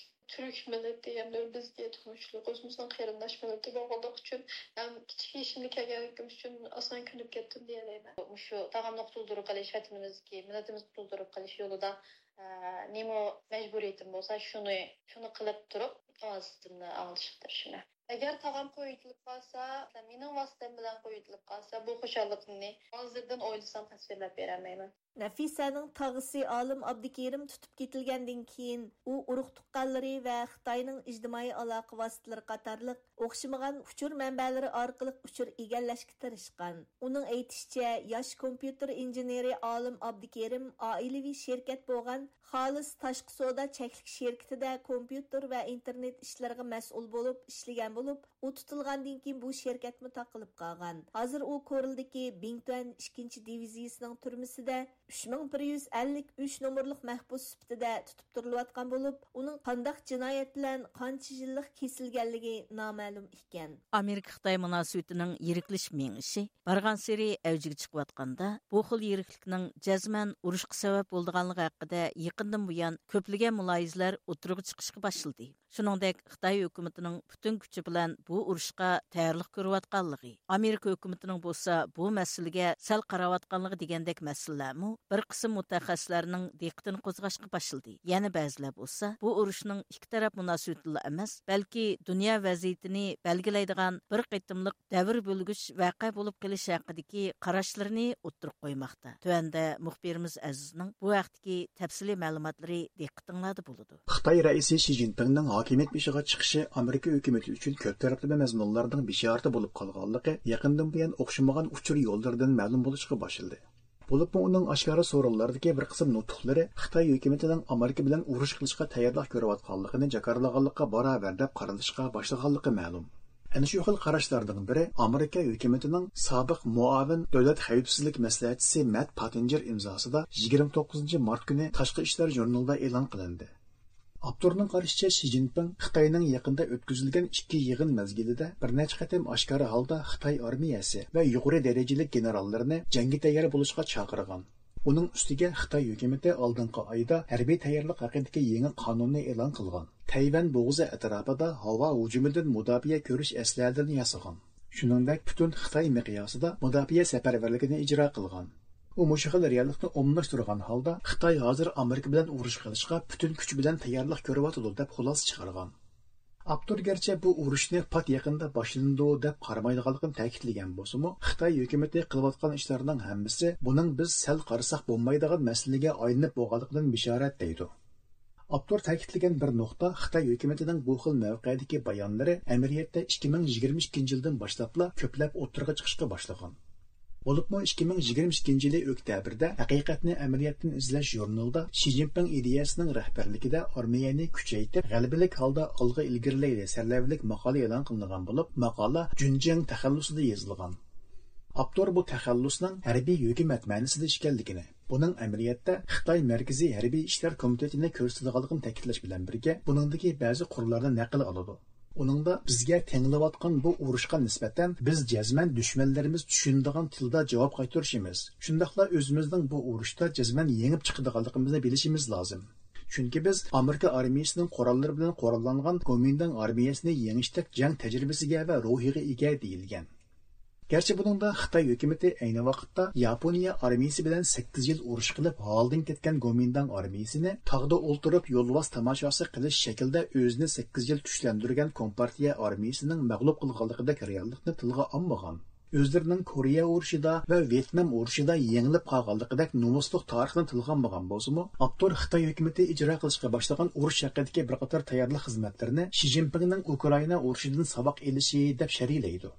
تۈرك مىللىتى ھەمدە بىزگە تونۇشلۇق، ئۆزىمىزنىڭ قېرىنداش مىللىتى بولغانلىقى ئۈچۈن ھەم كىچىك يېشىمدا كەلگەنلىكىم ئۈچۈن ئاسان كۆنۈپ كەتتىم دېيەلەيمەن. مۇشۇ تاغامنى قۇتۇلدۇرۇپ قېلىش، ۋەتىنىمىزدىكى مىللىتىمىزنى قۇتۇلدۇرۇپ قېلىش يولىدا، ئە، نېمە مەجبۇرىيىتىم بولسا، شۇنى، شۇنى قىلىپ تۇرۇپ، ئاۋازىمنى ئاڭلىتىشقا تىرىشىمەن. ئەگەر تاغام قويۇۋېتىلىپ قالسا، مەسىلەن، مېنىڭ ۋاسىتەم بىلەن قويۇۋېتىلىپ قالسا، بۇ خۇشاللىقىمنى ھازىردىن ئويلىسام تەسۋىرلەپ بېرەلمەيمەن. نەفىسەنىڭ تاغىسى ئالىم ئابدۇكېرىم تۇتۇپ كېتىلگەندىن كېيىن، ئۇ ئۇرۇق تۇغقانلىرى ۋە خىتاينىڭ ئىجتىمائىي ئالاقە ۋاسىتىلىرى قاتارلىق ئوخشىمىغان ئۇچۇر مەنبەلىرى ئارقىلىق ئۇچۇر ئىگىلەشكە تىرىشقان. ئۇنىڭ ئېيتىشىچە، ياش كومپيۇتېر ئىنژېنېرى ئالىم ئابدۇكېرىم ئائىلىۋى شىركەت بولغان خالىس تاشقى سودا چەكلىك شىركىتىدە كومپيۇتېر ۋە ئىنتېرنېت ئىشلىرىغا مەسئۇل بولۇپ ئىشلىگەن بولۇپ، ئۇ تۇتۇلغاندىن كېيىن بۇ شىركەتمۇ تاقىلىپ قالغان. ھازىر ئۇ كورلىدىكى بىڭتۈەن ئىككىنچى دىۋىزىيىسىنىڭ تۈرمىسىدە ئۈچ مىڭ بىر يۈز ئەللىك ئۈچ نومۇرلۇق مەھبۇس سۈپىتىدە تۇتۇپ تۇرۇلۇۋاتقان بولۇپ، ئۇنىڭ قانداق جىنايەت بىلەن قانچە يىللىق كېسىلگەنلىكى نامەلۇم ئىكەن. ئامېرىكا-خىتاي مۇناسىۋىتىنىڭ يىرىكلىشىپ مېڭىشى بارغانسېرى ئەۋجىگە چىقىۋاتقاندا، بۇ خىل يىرىكلىكنىڭ جەزمەن ئۇرۇشقا سەۋەب بولىدىغانلىقى ھەققىدە يېقىندىن بۇيان كۆپلىگەن مۇلاھىزىلەر ئوتتۇرىغا چىقىشقا باشلىدى. شۇنىڭدەك، خىتاي ھۆكۈمىتىنىڭ پۈتۈن كۈچى بىلەن بۇ ئۇرۇشقا تەييارلىق كۆرۈۋاتقانلىقى، ئامېرىكا ھۆكۈمىتىنىڭ بولسا بۇ مەسىلىگە سەل قاراۋاتقانلىقى دېگەندەك مەسىلىلەرمۇ بىر قىسىم مۇتەخەسسىسلەرنىڭ دىققىتىنى قوزغاشقا باشلىدى. يەنە بەزىلەر بولسا بۇ ئۇرۇشنىڭ ئىككى تەرەپ مۇناسىۋىتىدىلا ئەمەس، بەلكى دۇنيا ۋەزىيىتىنى بەلگىلەيدىغان بىر قېتىملىق دەۋر بۆلگۈچ ۋەقە بولۇپ قېلىشى ھەققىدىكى قاراشلىرىنى ئوتتۇرىغا قويماقتا. تۆۋەندە مۇخبىرىمىز ئەزىزنىڭ بۇ ھەقتىكى تەپسىلىي مەلۇماتلىرى دىققىتىڭلاردا بولىدۇ. خىتاي رەئىسى شى جىنپىڭنىڭ ھاكىمىيەت بېشىغا چىقىشى ئامېرىكا ھۆكۈمىتى ئۈچۈن كۆپ تەرەپلىمە مەزمۇنلارنىڭ بېشارىتى بولۇپ قالغانلىقى يېقىندىن بۇيان ئوخشىمىغان ئۇچۇر يوللىرىدىن مەلۇم بولۇشقا باشلىدى. بولۇپمۇ ئۇنىڭ ئاشكارا سورۇنلاردىكى بىر قىسىم نۇتۇقلىرى خىتاي ھۆكۈمىتىنىڭ ئامېرىكا بىلەن ئۇرۇش قىلىشقا تەييارلىق كۆرۈۋاتقانلىقىنى جاكارلىغانلىققا باراۋەر دەپ قارىلىشقا باشلىغانلىقى مەلۇم. ئەنە شۇ خىل قاراشلاردىن بىرى ئامېرىكا ھۆكۈمىتىنىڭ سابىق مۇئاۋىن دۆلەت خەۋپسىزلىك مەسلىھەتچىسى مەت پاتىنجېر ئىمزاسىدا يىگىرمە توققۇزىنچى مارت كۈنى تاشقى ئىشلار ژۇرنىلىدا ئېلان قىلىندى. ئاپتورنىڭ قارىشىچە، شى جىنپىڭ خىتاينىڭ يېقىندا ئۆتكۈزۈلگەن ئىككى يىغىن مەزگىلىدە بىر نەچچە قېتىم ئاشكارا ھالدا خىتاي ئارمىيەسى ۋە يۇقىرى دەرىجىلىك گېنېراللىرىنى جەڭگە تەييار بولۇشقا چاقىرغان. ئۇنىڭ ئۈستىگە خىتاي ھۆكۈمىتى ئالدىنقى ئايدا ھەربىي تەييارلىق ھەققىدىكى يېڭى قانۇننى ئېلان قىلغان. تەيۋەن بوغۇزى ئەتراپىدا ھاۋا ھۇجۇمىدىن مۇداپىئە كۆرۈش ئەسلىھەلىرىنى ياسىغان. شۇنىڭدەك پۈتۈن خىتاي مىقياسىدا مۇداپىئە سەپەرۋەرلىكىنى ئىجرا قىلغان. ئۇ مۇشۇ خىل رېئاللىقنى ئومۇملاشتۇرغان ھالدا، خىتاي ھازىر ئامېرىكا بىلەن ئۇرۇش قىلىشقا پۈتۈن كۈچ بىلەن تەييارلىق كۆرۈۋاتىدۇ، دەپ خۇلاسە چىقارغان. ئاپتور گەرچە بۇ ئۇرۇشنى پات يېقىندا باشلىنىدۇ دەپ قارىمايدىغانلىقىنى تەكىتلىگەن بولسىمۇ، خىتاي ھۆكۈمىتى قىلىۋاتقان ئىشلارنىڭ ھەممىسى بۇنىڭ بىز سەل قارىساق بولمايدىغان مەسىلىگە ئايلىنىپ بولغانلىقىدىن بېشارەت، دەيدۇ. ئاپتور تەكىتلىگەن بىر نۇقتا، خىتاي ھۆكۈمىتىنىڭ بۇ خىل مەۋقەدىكى بايانلىرى ئەمەلىيەتتە ئىككى مىڭ يىگىرمە ئىككىنچى يىلدىن باشلاپلا كۆپلەپ ئوتتۇرىغا چىقىشقا باشلىغان. بولۇپمۇ ئىككى مىڭ يىگىرمە ئىككىنچى يىلى ئۆكتەبىردە ھەقىقەتنى ئەمەلىيەتتىن ئىزدەش ژۇرنىلىدا شى جىنپىڭ ئىدىيەسىنىڭ رەھبەرلىكىدە ئارمىيەنى كۈچەيتىپ، غەلىبىلىك ھالدا ئالغا ئىلگىرىلەيلى سەرلەۋھىلىك ماقالە ئېلان قىلىنغان بولۇپ، ماقالە جۈنجياڭ تەخەللۇسىدا يېزىلغان. ئاپتور بۇ تەخەللۇسنىڭ ھەربىي ھۆكۈمەت مەنىسىدە ئىكەنلىكىنى، بۇنىڭ ئەمەلىيەتتە خىتاي مەركىزىي ھەربىي ئىشلار كومىتېتىنى كۆرسىتىدىغانلىقىنى تەكىتلەش بىلەن بىرگە، بۇنىڭدىكى بەزى قۇرلارنى نەقىل قىلىدۇ. ئۇنىڭدا بىزگە تەڭلەۋاتقان بۇ ئۇرۇشقا نىسبەتەن بىز جەزمەن دۈشمەنلىرىمىز چۈشىنىدىغان تىلدا جاۋاب قايتۇرۇشىمىز، شۇنداقلا ئۆزىمىزنىڭ بۇ ئۇرۇشتا جەزمەن يېڭىپ چىقىدىغانلىقىمىزنى بىلىشىمىز لازىم. چۈنكى بىز ئامېرىكا ئارمىيىسىنىڭ قوراللىرى بىلەن قوراللانغان گومىنداڭ ئارمىيەسىنى يېڭىشتەك جەڭ تەجرىبىسىگە ۋە روھىغا ئىگە، دېيىلگەن. گەرچە بۇنىڭدا خىتاي ھۆكۈمىتى ئەينى ۋاقىتتا ياپونىيە ئارمىيىسى بىلەن سەككىز يىل ئۇرۇش قىلىپ ھالىدىن كەتكەن گومىنداڭ ئارمىيىسىنى تاغدا ئولتۇرۇپ يولۋاس تاماشاسى قىلىش شەكلىدە ئۆزىنى سەككىز يىل كۈچلەندۈرگەن كومپارتىيە ئارمىيىسىنىڭ مەغلۇپ قىلغانلىقىدەك رېئاللىقنى تىلغا ئالمىغان. ئۆزلىرىنىڭ كورېيە ئۇرۇشىدا ۋە ۋيېتنام ئۇرۇشىدا يېڭىلىپ قالغانلىقىدەك نومۇسلۇق تارىخنى تىلغا ئالمىغان بولسىمۇ، ئاپتور خىتاي ھۆكۈمىتى ئىجرا قىلىشقا باشلىغان ئۇرۇش ھەققىدىكى بىر قاتار تەييارلىق خىزمەتلىرىنى شى جىنپىڭنىڭ ئۇكرائىنا ئۇرۇشىدىن ساۋاق ئېلىشى دەپ شەرھلەيدۇ.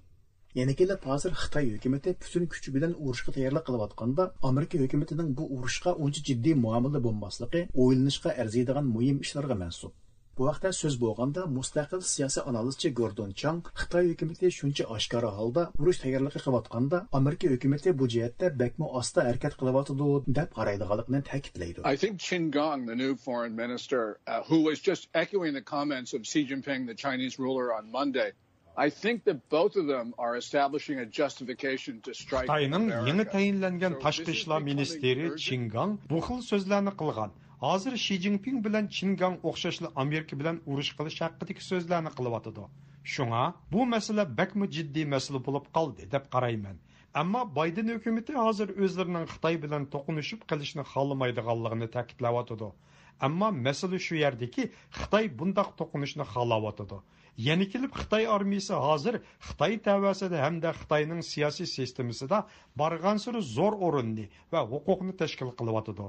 يەنە كېلىپ ھازىر خىتاي ھۆكۈمىتى پۈتۈن كۈچى بىلەن ئۇرۇشقا تەييارلىق قىلىۋاتقاندا، ئامېرىكا ھۆكۈمىتىنىڭ بۇ ئۇرۇشقا ئۇنچە جىددىي مۇئامىلىدە بولماسلىقى ئويلىنىشقا ئەرزىيدىغان مۇھىم ئىشلارغا مەنسۇپ. بۇ ھەقتە سۆز بولغاندا، مۇستەقىل سىياسىي ئانالىزچى گوردون چاڭ خىتاي ھۆكۈمىتى شۇنچە ئاشكارا ھالدا ئۇرۇش تەييارلىقى قىلىۋاتقاندا، ئامېرىكا ھۆكۈمىتى بۇ جەھەتتە بەكمۇ ئاستا ھەرىكەت قىلىۋاتىدۇ، دەپ قارايدىغانلىقىنى تەكىتلەيدۇ. I think Qin Gang, the new foreign minister, uh, who was just echoing the comments of Xi Jinping, the Chinese ruler, on Monday, I think that both of them are establishing a justification to strike خىتاينىڭ يېڭى America. تەيىنلەنگەن So تاشقى this is ئىشلار becoming مىنىستىرى urgent. چىن گاڭ بۇ خىل سۆزلەرنى قىلغان. ھازىر شى جىنپىڭ بىلەن چىن گاڭ ئوخشاشلا ئامېرىكا بىلەن ئۇرۇش قىلىش ھەققىدىكى سۆزلەرنى قىلىۋاتىدۇ. شۇڭا بۇ مەسىلە بەكمۇ جىددىي مەسىلە بولۇپ قالدى دەپ قارايمەن. ئەمما بايدېن ھۆكۈمىتى ھازىر ئۆزلىرىنىڭ خىتاي بىلەن توقۇنۇشۇپ قېلىشنى خالىمايدىغانلىقىنى تەكىتلەۋاتىدۇ. ئەمما مەسىلە شۇ يەردىكى، خىتاي بۇنداق توقۇنۇشنى خالاۋاتىدۇ. يەنە كېلىپ خىتاي ئارمىيىسى ھازىر خىتاي تەۋەسىدە ھەمدە خىتاينىڭ سىياسىي سىستېمىسىدا بارغانسېرى زور ئورۇننى ۋە ھوقۇقنى تەشكىل قىلىۋاتىدۇ.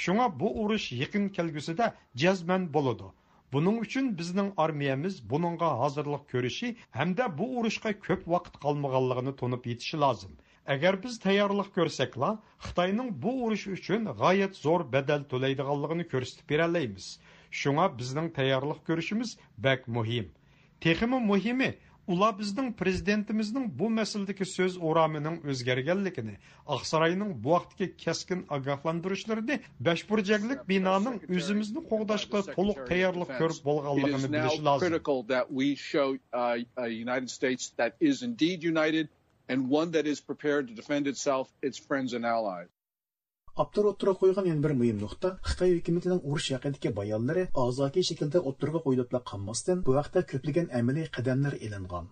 شۇڭا بۇ ئۇرۇش يېقىن كەلگۈسىدە جەزمەن بولىدۇ. بۇنىڭ ئۈچۈن بىزنىڭ ئارمىيەمىز بۇنىڭغا ھازىرلىق كۆرۈشى ھەمدە بۇ ئۇرۇشقا كۆپ ۋاقىت قالمىغانلىقىنى تونۇپ يېتىشى لازىم. ئەگەر بىز تەييارلىق كۆرسەكلا، خىتاينىڭ بۇ ئۇرۇش ئۈچۈن غايەت زور بەدەل تۆلەيدىغانلىقىنى كۆرسىتىپ بېرەلەيمىز. شۇڭا بىزنىڭ تەييارلىق كۆرۈشىمىز بەك مۇھىم. تېخىمۇ مۇھىمى، ئۇلار بىزنىڭ پرېزىدېنتىمىزنىڭ بۇ مەسىلىدىكى سۆز ئورامىنىڭ ئۆزگەرگەنلىكىنى، ئاقساراينىڭ بۇ ھەقتىكى كەسكىن ئاگاھلاندۇرۇشلىرىنى، بەشبۇرجەكلىك بىنانىڭ ئۆزىمىزنى قوغداشقا تولۇق تەييارلىق كۆرۈپ بولغانلىقىنى بىلىشى لازىم. Critical that we show uh, a United States that is indeed united and one that is prepared to defend itself, its friends and allies. ئاپتور ئوتتۇرىغا قويغان يەنە بىر مۇھىم نۇقتا، خىتاي ھۆكۈمىتىنىڭ ئۇرۇش ھەققىدىكى بايانلىرى ئازاكى شەكىلدە ئوتتۇرىغا قويۇلۇپلا قالماستىن، بۇ ھەقتە كۆپلىگەن ئەمەلىي قەدەملەر ئېلىنغان.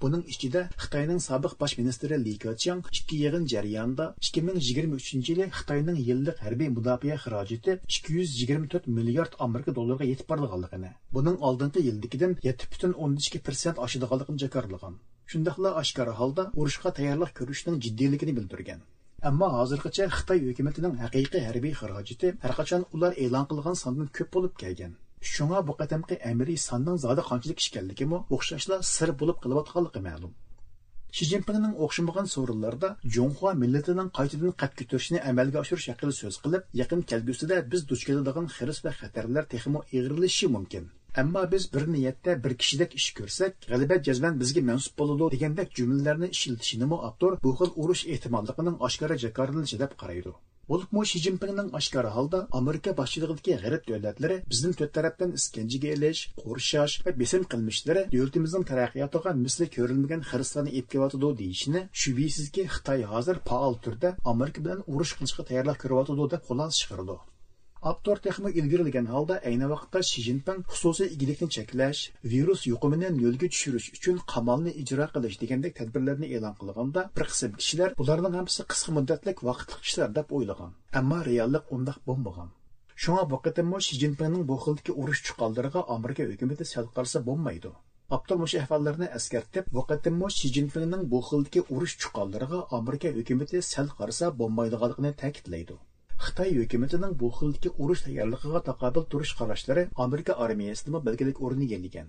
بۇنىڭ ئىچىدە خىتاينىڭ سابىق باش مىنىستىرى لى كېچياڭ ئىككى يىغىن جەريانىدا ئىككى مىڭ يىگىرمە ئۈچىنچى يىلى خىتاينىڭ يىللىق ھەربىي مۇداپىئە خىراجىتى ئىككى يۈز يىگىرمە تۆت مىليارد ئامېرىكا دوللىرىغا يېتىپ بارىدىغانلىقىنى، بۇنىڭ ئالدىنقى يىلدىكىدىن يەتتە پۈتۈن ئوندىن ئىككى پىرسەنت ئاشىدىغانلىقىنى جاكارلىغان. شۇنداقلا ئاشكارا ھالدا ئۇرۇشقا تەييارلىق كۆرۈشنىڭ جىددىيلىكىنى بىلدۈرگەن. ئەمما ھازىرغىچە خىتاي ھۆكۈمىتىنىڭ ھەقىقىي ھەربىي خىراجىتى ھەرقاچان ئۇلار ئېلان قىلغان ساندىن كۆپ بولۇپ كەلگەن. شۇڭا بۇ قېتىمقى ئەمەلىي ساننىڭ زادى قانچىلىك ئىكەنلىكىمۇ ئوخشاشلا سىر بولۇپ قېلىۋاتقانلىقى مەلۇم. شى جىنپىڭنىڭ ئوخشىمىغان سورۇنلاردا جۇڭخۇا مىللىتىنىڭ قايتىدىن قەد كۆتۈرۈشىنى ئەمەلگە ئاشۇرۇش ھەققىدە سۆز قىلىپ، يېقىن كەلگۈسىدە بىز دۇچ كېلىدىغان خىرىس ۋە خەتەرلەر تېخىمۇ ئېغىرلىشىشى مۇمكىن. ئەمما بىز بىر نىيەتتە بىر كىشىدەك ئىش كۆرسەك، غەلىبە جەزمەن بىزگە مەنسۇپ بولىدۇ دېگەندەك جۈملىلەرنى ئىشلىتىشىنىمۇ ئاپتور بۇ خىل ئۇرۇش ئېھتىماللىقىنىڭ ئاشكارا جاكارلىنىشى دەپ قارايدۇ. بولۇپمۇ شى جىنپىڭنىڭ ئاشكارا ھالدا ئامېرىكا باشچىلىقىدىكى غەرب دۆلەتلىرى بىزنى تۆت تەرەپتىن ئىسكەنجىگە ئېلىش، قورشاش ۋە بېسىم قىلمىشلىرى دۆلىتىمىزنىڭ تەرەققىياتىغا مىسلى كۆرۈلمىگەن خىرىسلارنى ئېلىپ كېلىۋاتىدۇ دېيىشىنى شۈبھىسىزكى خىتاي ھازىر پائال تۈردە ئامېرىكا بىلەن ئۇرۇش قىلىشقا تەييارلىق كۆرۈۋاتىدۇ دەپ خۇلاسە چىقىرىدۇ. ئاپتور تېخىمۇ ئىلگىرىلىگەن ھالدا، ئەينى ۋاقىتتا شى جىنپىڭ خۇسۇسىي ئىگىلىكنى چەكلەش، ۋىرۇس يۇقۇمىنى نۆلگە چۈشۈرۈش ئۈچۈن قامالنى ئىجرا قىلىش دېگەندەك تەدبىرلەرنى ئېلان قىلغاندا، بىر قىسىم كىشىلەر بۇلارنىڭ ھەممىسى قىسقا مۇددەتلىك ۋاقىتلىق ئىشلار دەپ ئويلىغان. ئەمما رېئاللىق ئۇنداق بولمىغان. شۇڭا بۇ قېتىممۇ شى جىنپىڭنىڭ بۇ خىلدىكى ئۇرۇش چۇقانلىرىغا ئامېرىكا ھۆكۈمىتى سەل قارىسا بولمايدۇ. ئاپتور مۇشۇ ئەھۋاللارنى ئەسكەرتىپ، بۇ قېتىممۇ شى جىنپىڭنىڭ بۇ خىلدىكى ئۇرۇش چۇقانلىرىغا ئامېرىكا ھۆكۈمىتى سەل قارىسا بولمايدىغانلىقىنى تەكىتلەيدۇ. خىتاي ھۆكۈمىتىنىڭ بۇ خىلدىكى ئۇرۇش تەييارلىقىغا تاقابىل تۇرۇش قاراشلىرى ئامېرىكا ئارمىيەسىدىمۇ بەلگىلىك ئورۇن ئىگىلىگەن.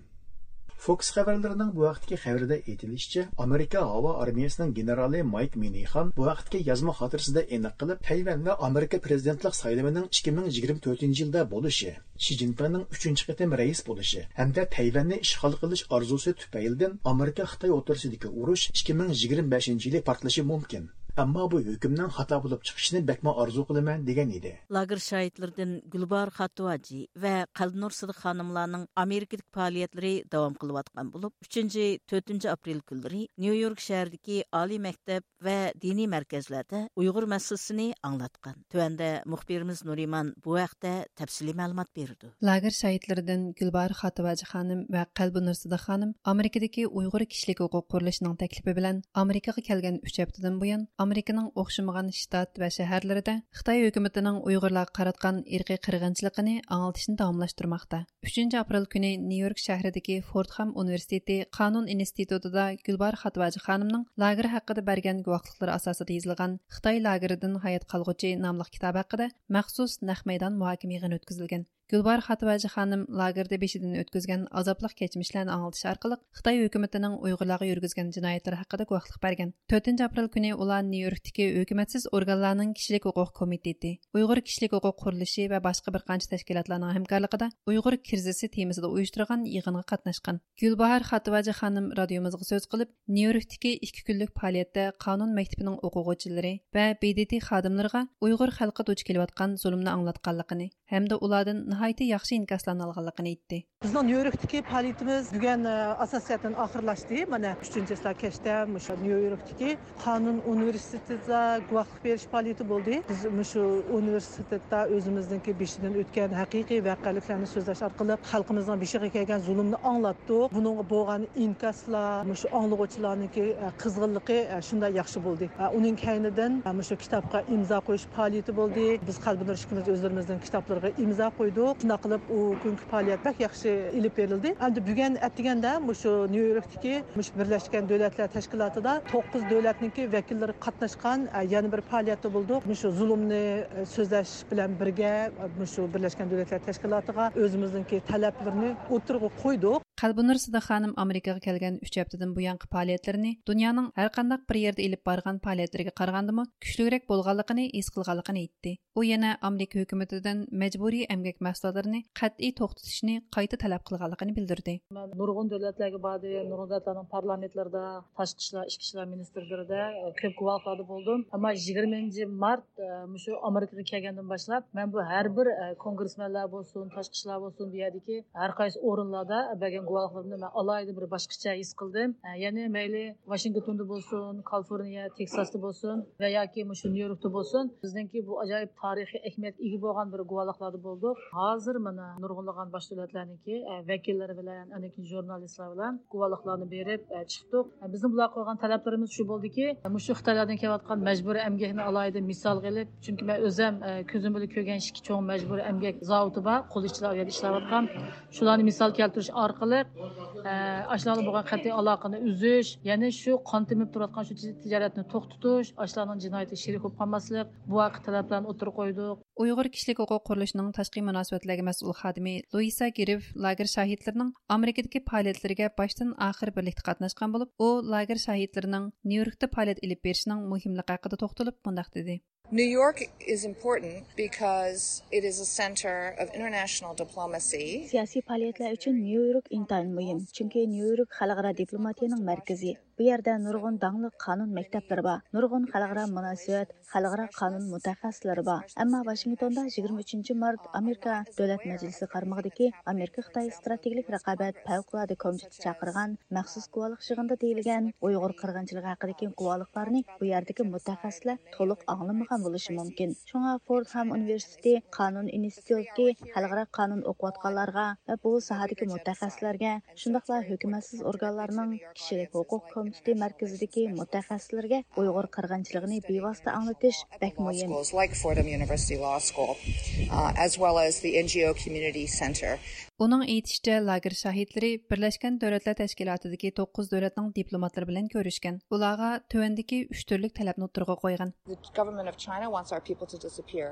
فوكس خەۋەرلىرىنىڭ بۇ ھەقتىكى خەۋىرىدە ئېيتىلىشىچە، ئامېرىكا ھاۋا ئارمىيەسىنىڭ گېنېرالى مايك مىنىخان بۇ ھەقتىكى يازما خاتىرىسىدە ئېنىق قىلىپ، تەيۋەن ۋە ئامېرىكا پرېزىدېنتلىق سايلىمىنىڭ ئىككى مىڭ يىگىرمە تۆتىنچى يىلدا بولۇشى، شى جىنپىڭنىڭ ئۈچىنچى قېتىم رەئىس بولۇشى ھەمدە تەيۋەننى ئىشغال قىلىش ئارزۇسى تۈپەيلىدىن ئامېرىكا خىتاي ئوتتۇرىسىدىكى ئۇرۇش ئىككى مىڭ يىگىرمە بەشىنچى يىلى پارتلىشى مۇمكىن. ئەمما بۇ ھۆكۈمنىڭ خاتا بولۇپ چىقىشىنى بەكمۇ ئارزۇ قىلىمەن، دېگەن ئىدى. لاگېر شاھىتلىرىدىن گۈلباھار خاتىۋاجى ۋە قەلبىنۇر سىدىق خانىملارنىڭ ئامېرىكىدىكى پائالىيەتلىرى داۋام قىلىۋاتقان بولۇپ، ئۈچىنچى، تۆتىنچى ئاپرېل كۈنلىرى نيۇ يورك شەھىرىدىكى ئالىي مەكتەپ ۋە دىنىي مەركەزلەردە ئۇيغۇر مەسىلىسىنى ئاڭلاتقان. تۆۋەندە مۇخبىرىمىز نۇرىمان بۇ ھەقتە تەپسىلىي مەلۇمات بېرىدۇ. لاگېر شاھىتلىرىدىن گۈلباھار خاتىۋاجى خانىم ۋە قەلبىنۇر سىدىق خانىم ئامېرىكىدىكى ئۇيغۇر كىشىلىك ھوقۇق قۇرۇلۇشىنىڭ تەكلىپى بىلەن ئامېرىكىغا كەلگەن ئۈچ ھەپتىدىن بۇيان ئامېرىكىنىڭ ئوخشىمىغان شتات ۋە شەھەرلىرىدە خىتاي ھۆكۈمىتىنىڭ ئۇيغۇرلارغا قاراتقان ئىرقىي قىرغىنچىلىقىنى ئاڭلىتىشنى داۋاملاشتۇرماقتا. ئۈچىنچى ئاپرېل كۈنى نيۇ يورك شەھىرىدىكى فوردخام ئۇنىۋېرسىتېتى قانۇن ئىنستىتۇتىدا گۈلباھار خاتىۋاجى خانىمنىڭ لاگېر ھەققىدە بەرگەن گۇۋاھلىقلىرى ئاساسىدا يېزىلغان خىتاي لاگېرىدىن ھايات قالغۇچى ناملىق كىتابى ھەققىدە مەخسۇس نەق مەيدان مۇھاكىمە يىغىنى ئۆتكۈزۈلگەن. گۈلباھار خاتىۋاجى خانىم لاگېردا بېشىدىن ئۆتكۈزگەن ئازابلىق كەچمىشلەرنى ئاڭلىتىش ئارقىلىق خىتاي ھۆكۈمىتىنىڭ ئۇيغۇرلارغا يۈرگۈزگەن جىنايەتلىرى ھەققىدە گۇۋاھلىق بەرگەن. تۆتىنچى ئاپرېل كۈنى ئۇلار نيۇ يوركتىكى ھۆكۈمەتسىز ئورگانلارنىڭ كىشىلىك ھوقۇق كومىتېتى، ئۇيغۇر كىشىلىك ھوقۇق قۇرۇلۇشى ۋە باشقا بىر قانچە تەشكىلاتلارنىڭ ھەمكارلىقىدا ئۇيغۇر كىرىزىسى تېمىسىدا ئۇيۇشتۇرغان يىغىنغا قاتناشقان. گۈلباھار خاتىۋاجى خانىم رادىيومىزغا سۆز قىلىپ، نيۇ يوركتىكى ئىككى كۈنلۈك پائالىيەتتە قانۇن مەكتىپىنىڭ ئوقۇغۇچىلىرى ۋە ب د ت خادىملىرىغا ئۇيغۇر خەلقى دۇچ كېلىۋاتقان زۇلۇمنى ئاڭلاتقانلىقىنى ھەمدە ئۇلاردىن ناھايىتى ياخشى ئىنكاسلارنى ئالغانلىقىنى ئېيتتى. بىزنىڭ نيۇ يوركتىكى پائالىيىتىمىز بۈگۈن، ئە، ئاساسىي جەھەتتىن ئاخىرلاشتى. مانا، ئۈچىنچى چىسلا كەچتە مۇشۇ نيۇ يوركتىكى قانۇن ئۇنىۋېرسىتېتىدا گۇۋاھلىق بېرىش پائالىيىتى بولدى. بىز مۇشۇ ئۇنىۋېرسىتېتتا ئۆزىمىزنىڭكى بېشىدىن ئۆتكەن ھەقىقىي ۋەقەلىكلەرنى سۆزلەش ئارقىلىق خەلقىمىزنىڭ بېشىغا كەلگەن زۇلۇمنى ئاڭلاتتۇق. بۇنىڭغا بولغان ئىنكاسلار، مۇشۇ ئاڭلىغۇچىلارنىڭكى، ئە، قىزغىنلىقى، ئە، شۇنداق ياخشى بولدى. ئە، ئۇنىڭ كەينىدىن، ئە، مۇشۇ كىتابقا ئىمزا قويۇش پائالىيىتى بولدى. بىز قەلبىنۇر ئىككىمىز ئۆزلىرىمىزنىڭ كىتابلىرىغا ئىمزا قويدۇق. شۇنداق قىلىپ ئۇ كۈنكى پائالىيەت بەك ياخشى ئېلىپ بېرىلدى. ئەمدى بۈگۈن ئەتىگەندە مۇشۇ نيۇ يوركتىكى مۇشۇ بىرلەشكەن دۆلەتلەر تەشكىلاتىدا توققۇز دۆلەتنىڭكى ۋەكىللىرى قاتناشقان، ئە، يەنە بىر پائالىيەتتە بولدۇق. مۇشۇ زۇلۇمنى، ئە، سۆزلەش بىلەن بىرگە، ئە، مۇشۇ بىرلەشكەن دۆلەتلەر تەشكىلاتىغا ئۆزىمىزنىڭكى تەلەپلىرىنى ئوتتۇرىغا قويدۇق. قەلبىنۇر سىدىق خانىم ئامېرىكىغا كەلگەن ئۈچ ھەپتىدىن بۇيانقى پائالىيەتلىرىنى دۇنيانىڭ ھەرقانداق بىر يەردە ئېلىپ بارغان پائالىيەتلىرىگە قارىغاندىمۇ كۈچلۈكرەك بولغانلىقىنى ھېس قىلغانلىقىنى ئېيتتى. ئۇ يەنە ئامېرىكا ھۆكۈمىتىدىن مەجبۇرىي ئەمگەك مەھسۇلاتلىرىنى قەتئىي توختىتىشنى قايتا تەلەپ قىلغانلىقىنى بىلدۈردى. مەن نۇرغۇن دۆلەتلەرگە باردىم، نۇرغۇن دۆلەتلەرنىڭ پارلامېنتلىرىدا، تاشقى ئىشلار، ئىچكى ئىشلار مىنىستىرلىرىدە، ئە، كۆپ گۇۋاھلىقلاردا بولدۇم. ئەمما يىگىرمىنچى مارت، ئە، مۇشۇ ئامېرىكىغا كەلگەندىن باشلاپ، مەن بۇ ھەر بىر، ئە، كونگرېسمېنلار بولسۇن، تاشقى ئىشلار بولسۇن، بۇ يەردىكى ھەر قايسى ئورۇنلاردا بەرگەن گۇۋاھلىقلىرىمنى مەن ئالاھىدە بىر باشقىچە ھېس قىلدىم. ئە، يەنى مەيلى ۋاشىنگتوندا بولسۇن، كالىفورنىيە، تېكساستا بولسۇن ۋە ياكى مۇشۇ نيۇ يوركتا بولسۇن، بىزنىڭكى بۇ ئاجايىپ تارىخىي ئەھمىيەتكە ئىگە بولغان بىر گۇۋاھلىقلاردا بولدۇق. ھازىر مانا نۇرغۇنلىغان باش دۆلەتلەرنىڭكى، ئە، ۋەكىللىرى بىلەن، ئاندىن كېيىن ژۇرنالىستلار بىلەن گۇۋاھلىقلارنى بېرىپ، ئە، چىقتۇق. ئە، بىزنىڭ بۇلارغا قويغان تەلەپلىرىمىز شۇ بولدىكى، مۇشۇ خىتايلاردىن كېلىۋاتقان مەجبۇرىي ئەمگەكنى ئالاھىدە مىسالغا ئېلىپ، چۈنكى مەن ئۆزۈم، ئە، كۆزۈم بىلەن كۆرگەن ئىككى چوڭ مەجبۇرىي ئەمگەك زاۋۇتى بار، قول ئىشچىلار ئۇ يەردە ئىشلەۋاتقان. شۇلارنى مىسال كەلتۈرۈش ئارقىلىق، ئە، ئاشۇلارغا بولغان قەتئىي ئالاقىنى ئۈزۈش، يەنى شۇ قان تېمىپ تۇرۇۋاتقان شۇ تىج-، تىجارەتنى توختىتىش، ئاشۇلارنىڭ جىنايىتىگە شېرىك بولۇپ قالماسلىق، بۇ ھەققىدە تەلەپلەرنى ئوتتۇرىغا قويدۇق. ئۇيغۇر كىشىلىك ھوقۇق قۇرۇلۇشىنىڭ تاشقى مۇناسىۋەتلەرگە مەسئۇل خادىمى لۇئىسا گىرىف لاگېر شاھىتلىرىنىڭ ئامېرىكىدىكى پائالىيەتلىرىگە باشتىن ئاخىر بىرلىكتە قاتناشقان بولۇپ، ئۇ لاگېر شاھىتلىرىنىڭ نيۇ يوركتا پائالىيەت ئېلىپ بېرىشىنىڭ مۇھىملىقى ھەققىدە توختىلىپ مۇنداق دېدى. New York is important because it is a center of international diplomacy. سىياسىي پائالىيەتلەر ئۈچۈن نيۇ يورك ئىنتايىن مۇھىم، چۈنكى نيۇ يورك خەلقئارا دىپلوماتىيىنىڭ مەركىزى. بۇ يەردە نۇرغۇن داڭلىق قانۇن مەكتەپلىرى بار، نۇرغۇن خەلقئارا مۇناسىۋەت، خەلقئارا قانۇن مۇتەخەسسىسلىرى بار. ئەمما ۋاشىنگتوندا يىگىرمە ئۈچىنچى مارت ئامېرىكا دۆلەت مەجلىسى قارمىقىدىكى ئامېرىكا خىتاي ئىستراتېگىيەلىك رىقابەت پەۋقۇلئاددە كومىتېتى چاقىرغان مەخسۇس گۇۋاھلىق يىغىنىدا دېيىلگەن ئۇيغۇر قىرغىنچىلىقى ھەققىدىكى گۇۋاھلىقلارنى بۇ يەردىكى مۇتەخەسسىسلەر تولۇق ئاڭلىمىغان بولۇشى مۇمكىن. شۇڭا فوردھام ئۇنىۋېرسىتېتى قانۇن ئىنستىتۇتىدىكى خەلقئارا قانۇن ئوقۇۋاتقانلارغا ۋە بۇ ساھەدىكى مۇتەخەسسىسلەرگە، شۇنداقلا ھۆكۈمەتسىز ئورگانلارنىڭ كىشىلىك ھوقۇق كومىتېتى مەركىزىدىكى مۇتەخەسسىسلەرگە ئۇيغۇر قىرغىنچىلىقىنى بىۋاسىتە ئاڭلىتىش بەك مۇھىم. Schools like Fordham University Law School, uh, as well as the N G O Community Center. ئۇنىڭ ئېيتىشىچە، لاگېر شاھىتلىرى بىرلەشكەن دۆلەتلەر تەشكىلاتىدىكى توققۇز دۆلەتنىڭ دىپلوماتلىرى بىلەن كۆرۈشكەن. ئۇلارغا تۆۋەندىكى ئۈچ تۈرلۈك تەلەپنى ئوتتۇرىغا قويغان. The government of China wants our people to disappear.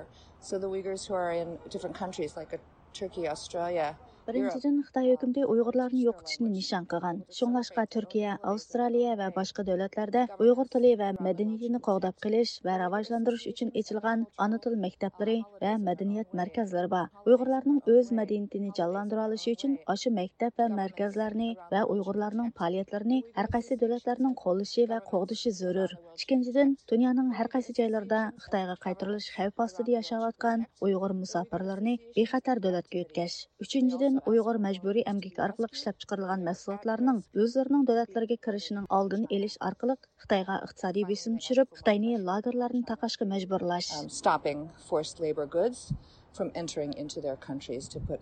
So the Uyghurs who are in different countries like, uh, Turkey, Australia, بىرىنچىدىن، خىتاي ھۆكۈمىتى ئۇيغۇرلارنى يوقىتىشنى نىشان قىلغان. شۇڭلاشقا، تۈركىيە، ئاۋسترالىيە ۋە باشقا دۆلەتلەردە ئۇيغۇر تىلى ۋە مەدەنىيىتىنى قوغداپ قېلىش ۋە راۋاجلاندۇرۇش ئۈچۈن ئېچىلغان ئانا تىل مەكتەپلىرى ۋە مەدەنىيەت مەركەزلىرى بار. ئۇيغۇرلارنىڭ ئۆز مەدەنىيىتىنى جانلاندۇرالىشى ئۈچۈن ئاشۇ مەكتەپ ۋە مەركەزلەرنى ۋە ئۇيغۇرلارنىڭ پائالىيەتلىرىنى ھەر قايسى دۆلەتلەرنىڭ قوللىشى ۋە قوغدىشى زۆرۈر. ئىككىنچىدىن، دۇنيانىڭ ھەر قايسى جايلىرىدا خىتايغا قايتۇرۇلۇش خەۋپى ئاستىدا ياشاۋاتقان ئۇيغۇر مۇساپىرلىرىنى بىخەتەر دۆلەتكە يۆتكەش. ئۈچىنچىدىن، ئۇيغۇر مەجبۇرىي ئەمگىكى ئارقىلىق ئىشلەپچىقىرىلغان مەھسۇلاتلارنىڭ ئۆزلىرىنىڭ دۆلەتلىرىگە كىرىشىنىڭ ئالدىنى ئېلىش ئارقىلىق خىتايغا ئىقتىسادىي بېسىم چۈشۈرۈپ، خىتاينى لاگېرلارنى تاقاشقا مەجبۇرلاش. Um, stopping forced labor goods from entering into their countries to put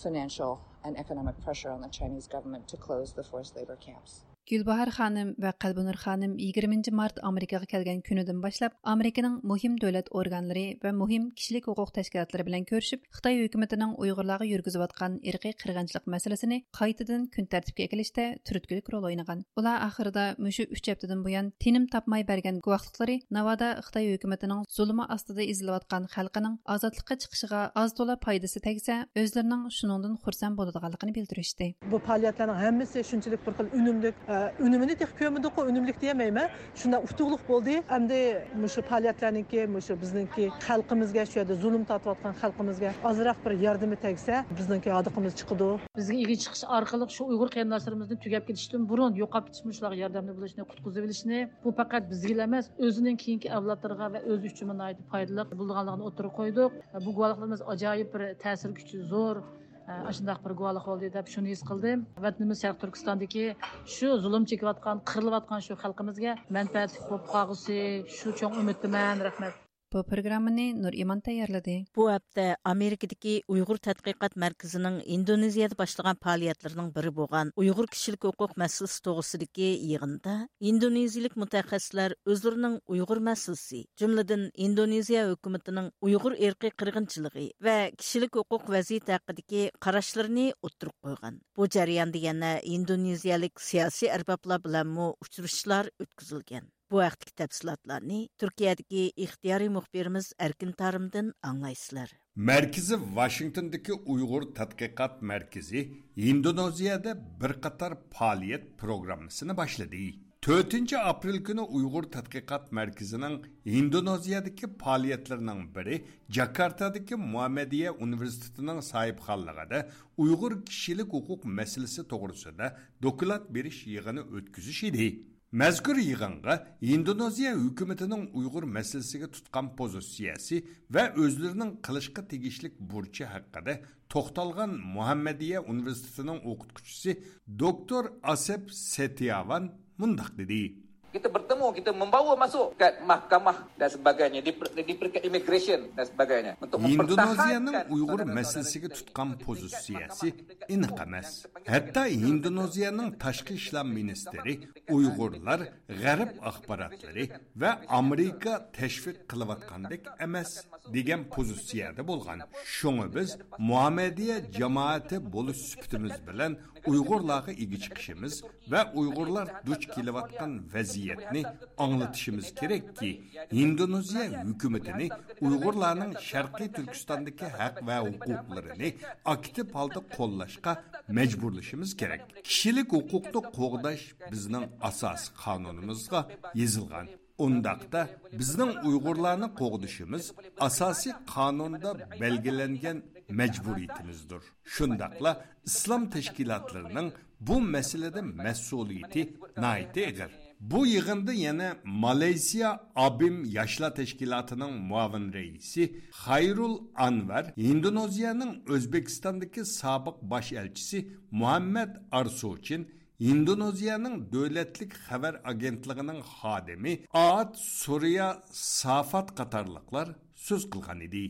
financial and economic pressure on the Chinese government to close the forced labor camps. گۈلباھار خانىم ۋە قەلبىنۇر خانىم يىگىرمىنچى مارت ئامېرىكىغا كەلگەن كۈنىدىن باشلاپ، ئامېرىكىنىڭ مۇھىم دۆلەت ئورگانلىرى ۋە مۇھىم كىشىلىك ھوقۇق تەشكىلاتلىرى بىلەن كۆرۈشۈپ، خىتاي ھۆكۈمىتىنىڭ ئۇيغۇرلارغا يۈرگۈزۈۋاتقان ئىرقىي قىرغىنچىلىق مەسىلىسىنى قايتىدىن كۈن تەرتىپكە ئەكېلىشتە تۈرتكىلىك رول ئوينىغان. ئۇلار ئاخىرىدا مۇشۇ ئۈچ ھەپتىدىن بۇيان تىنىم تاپماي بەرگەن گۇۋاھلىقلىرى ناۋادا خىتاي ھۆكۈمىتىنىڭ زۇلۇمى ئاستىدا ئېزىلىۋاتقان خەلقىنىڭ ئازادلىققا چىقىشىغا ئاز تولا پايدىسى تەگسە، ئۆزلىرىنىڭ شۇنىڭدىن خۇرسەن بولىدىغانلىقىنى بىلدۈرۈشتى. بۇ پائالىيەتلەرنىڭ ھەممىسى شۇنچىلىك بىر خىل ئۈنۈملۈك، ئە، ئۈنۈمىنى تېخى كۆرمىدۇققۇ، ئۈنۈملۈك دېيەلمەيمەن. شۇنداق ئۇتۇقلۇق بولدى. ئەمدى مۇشۇ پائالىيەتلەرنىڭكى، مۇشۇ بىزنىڭكى خەلقىمىزگە، شۇ يەردە زۇلۇم تارتىۋاتقان خەلقىمىزگە ئازراق بىر ياردىمى تەگسە، بىزنىڭكى ھاردۇقىمىز چىقىدۇ. بىزگە ئىگە چىقىش ئارقىلىق شۇ ئۇيغۇر قېرىنداشلىرىمىزنى تۈگەپ كېتىشتىن بۇرۇن يوقاپ كېتىش مۇشۇلارغا ياردەملىك بولۇشنى، قۇتقۇزۇۋېلىشنى، بۇ پەقەت بىزگىلا ئەمەس، ئۆزىنىڭ كېيىنكى ئەۋلادلىرىغا ۋە ئۆزى ئۈچۈنمۇ ناھايىتى پايدىلىق بولىدىغانلىقىنى ئوتتۇرىغا قويدۇق. بۇ گۇۋاھلىقلىرىمىز ئاجايىپ بىر تەسىر كۈچى زور، ئاشۇنداق بىر گۇۋاھلىق بولدى دەپ شۇنى ھېس قىلدىم. ۋەتىنىمىز شەرقىي تۈركىستاندىكى شۇ زۇلۇم چېكىۋاتقان، قىرىلىۋاتقان شۇ خەلقىمىزگە مەنپەئەتلىك بولۇپ قالغۇسى، شۇ چوڭ ئۈمىدتىمەن. رەھمەت. بۇ پروگراممىنى نۇرئىمان تەييارلىدى. بۇ ھەپتە ئامېرىكىدىكى ئۇيغۇر تەتقىقات مەركىزىنىڭ ئىندونېزىيەدە باشلىغان پائالىيەتلىرىنىڭ بىرى بولغان ئۇيغۇر كىشىلىك ھوقۇق مەسىلىسى توغرىسىدىكى يىغىندا ئىندونېزىيىلىك مۇتەخەسسىسلەر ئۆزلىرىنىڭ ئۇيغۇر مەسىلىسى، جۈملىدىن ئىندونېزىيە ھۆكۈمىتىنىڭ ئۇيغۇر ئىرقىي قىرغىنچىلىقى ۋە كىشىلىك ھوقۇق ۋەزىيىتى ھەققىدىكى قاراشلىرىنى ئوتتۇرىغا قويغان. بۇ جەرياندا يەنە ئىندونېزىيەلىك سىياسىي ئەربابلار بىلەنمۇ ئۇچرىشىشلار ئۆتكۈزۈلگەن. بۇ ھەقتىكى تەپسىلاتلارنى تۈركىيەدىكى ئىختىيارىي مۇخبىرىمىز ئەركىن تارىمدىن ئاڭلايسىلەر. مەركىزى ۋاشىنگتوندىكى ئۇيغۇر تەتقىقات مەركىزى ھىندونېزىيەدە بىر قاتار پائالىيەت پروگراممىسىنى باشلىدى. تۆتىنچى ئاپرېل كۈنى ئۇيغۇر تەتقىقات مەركىزىنىڭ ھىندونېزىيەدىكى پائالىيەتلىرىنىڭ بىرى جاكارتادىكى مۇھەممەدىيە ئۇنىۋېرسىتېتىنىڭ ساھىبخانلىقىدا ئۇيغۇر كىشىلىك ھوقۇق مەسىلىسى توغرىسىدا دوكلات بېرىش يىغىنى ئۆتكۈزۈش ئىدى. مەزكۇر يىغىنغا ھىندونېزىيە ھۆكۈمىتىنىڭ ئۇيغۇر مەسىلىسىگە تۇتقان پوزىتسىيەسى ۋە ئۆزلىرىنىڭ قىلىشقا تېگىشلىك بۇرچى ھەققىدە توختالغان مۇھەممەدىيە ئۇنىۋېرسىتېتىنىڭ ئوقۇتقۇچىسى دوكتور ئاسېپ سېتىياۋان مۇنداق دېدى. Kita bertemu, kita membawa masuk ke mahkamah dan sebagainya di, per- di peringkat immigration dan sebagainya untuk ھىندونېزىيەنىڭ ئۇيغۇر مەسىلىسىگە تۇتقان پوزىتسىيەسى ئېنىق ئەمەس. ھەتتا ھىندونېزىيەنىڭ تاشقى ئىشلار مىنىستىرى ئۇيغۇرلار غەرب ئاخباراتلىرى ۋە ئامېرىكا تەشۋىق قىلىۋاتقاندەك ئەمەس دېگەن پوزىتسىيەدە بولغان. شۇڭا بىز مۇھەممەدىيە جامائىتى بولۇش سۈپىتىمىز بىلەن ئۇيغۇرلارغا ئىگە چىقىشىمىز ۋە ئۇيغۇرلار دۇچ كېلىۋاتقان ۋەزىيەتنى ئاڭلىتىشىمىز كېرەككى، ھىندونېزىيە ھۆكۈمىتىنى ئۇيغۇرلارنىڭ شەرقىي تۈركىستاندىكى ھەق ۋە ھوقۇقلىرىنى ئاكتىپ ھالدا قوللاشقا مەجبۇرلىشىمىز كېرەك. كىشىلىك ھوقۇقنى قوغداش بىزنىڭ ئاساسىي قانۇنىمىزغا يېزىلغان. ئۇنداقتا بىزنىڭ ئۇيغۇرلارنى قوغدىشىمىز ئاساسىي قانۇندا بەلگىلەنگەن مەجبۇرىيىتىمىزدۇر. شۇنداقلا ئىسلام تەشكىلاتلىرىنىڭ بۇ مەسىلىدە مەسئۇلىيىتى ناھايىتى ئېغىر. بۇ يىغىندا يەنە مالايسىيا ئابىم ياشلار تەشكىلاتىنىڭ مۇئاۋىن رەئىسى خايرۇل ئانۋەر، ھىندونېزىيەنىڭ ئۆزبېكىستاندىكى سابىق باش ئەلچىسى مۇھەممەد ئارسوچىن، ھىندونېزىيەنىڭ دۆلەتلىك خەۋەر ئاگېنتلىقىنىڭ خادىمى ئات سورىيا سافات قاتارلىقلار سۆز قىلغان ئىدى.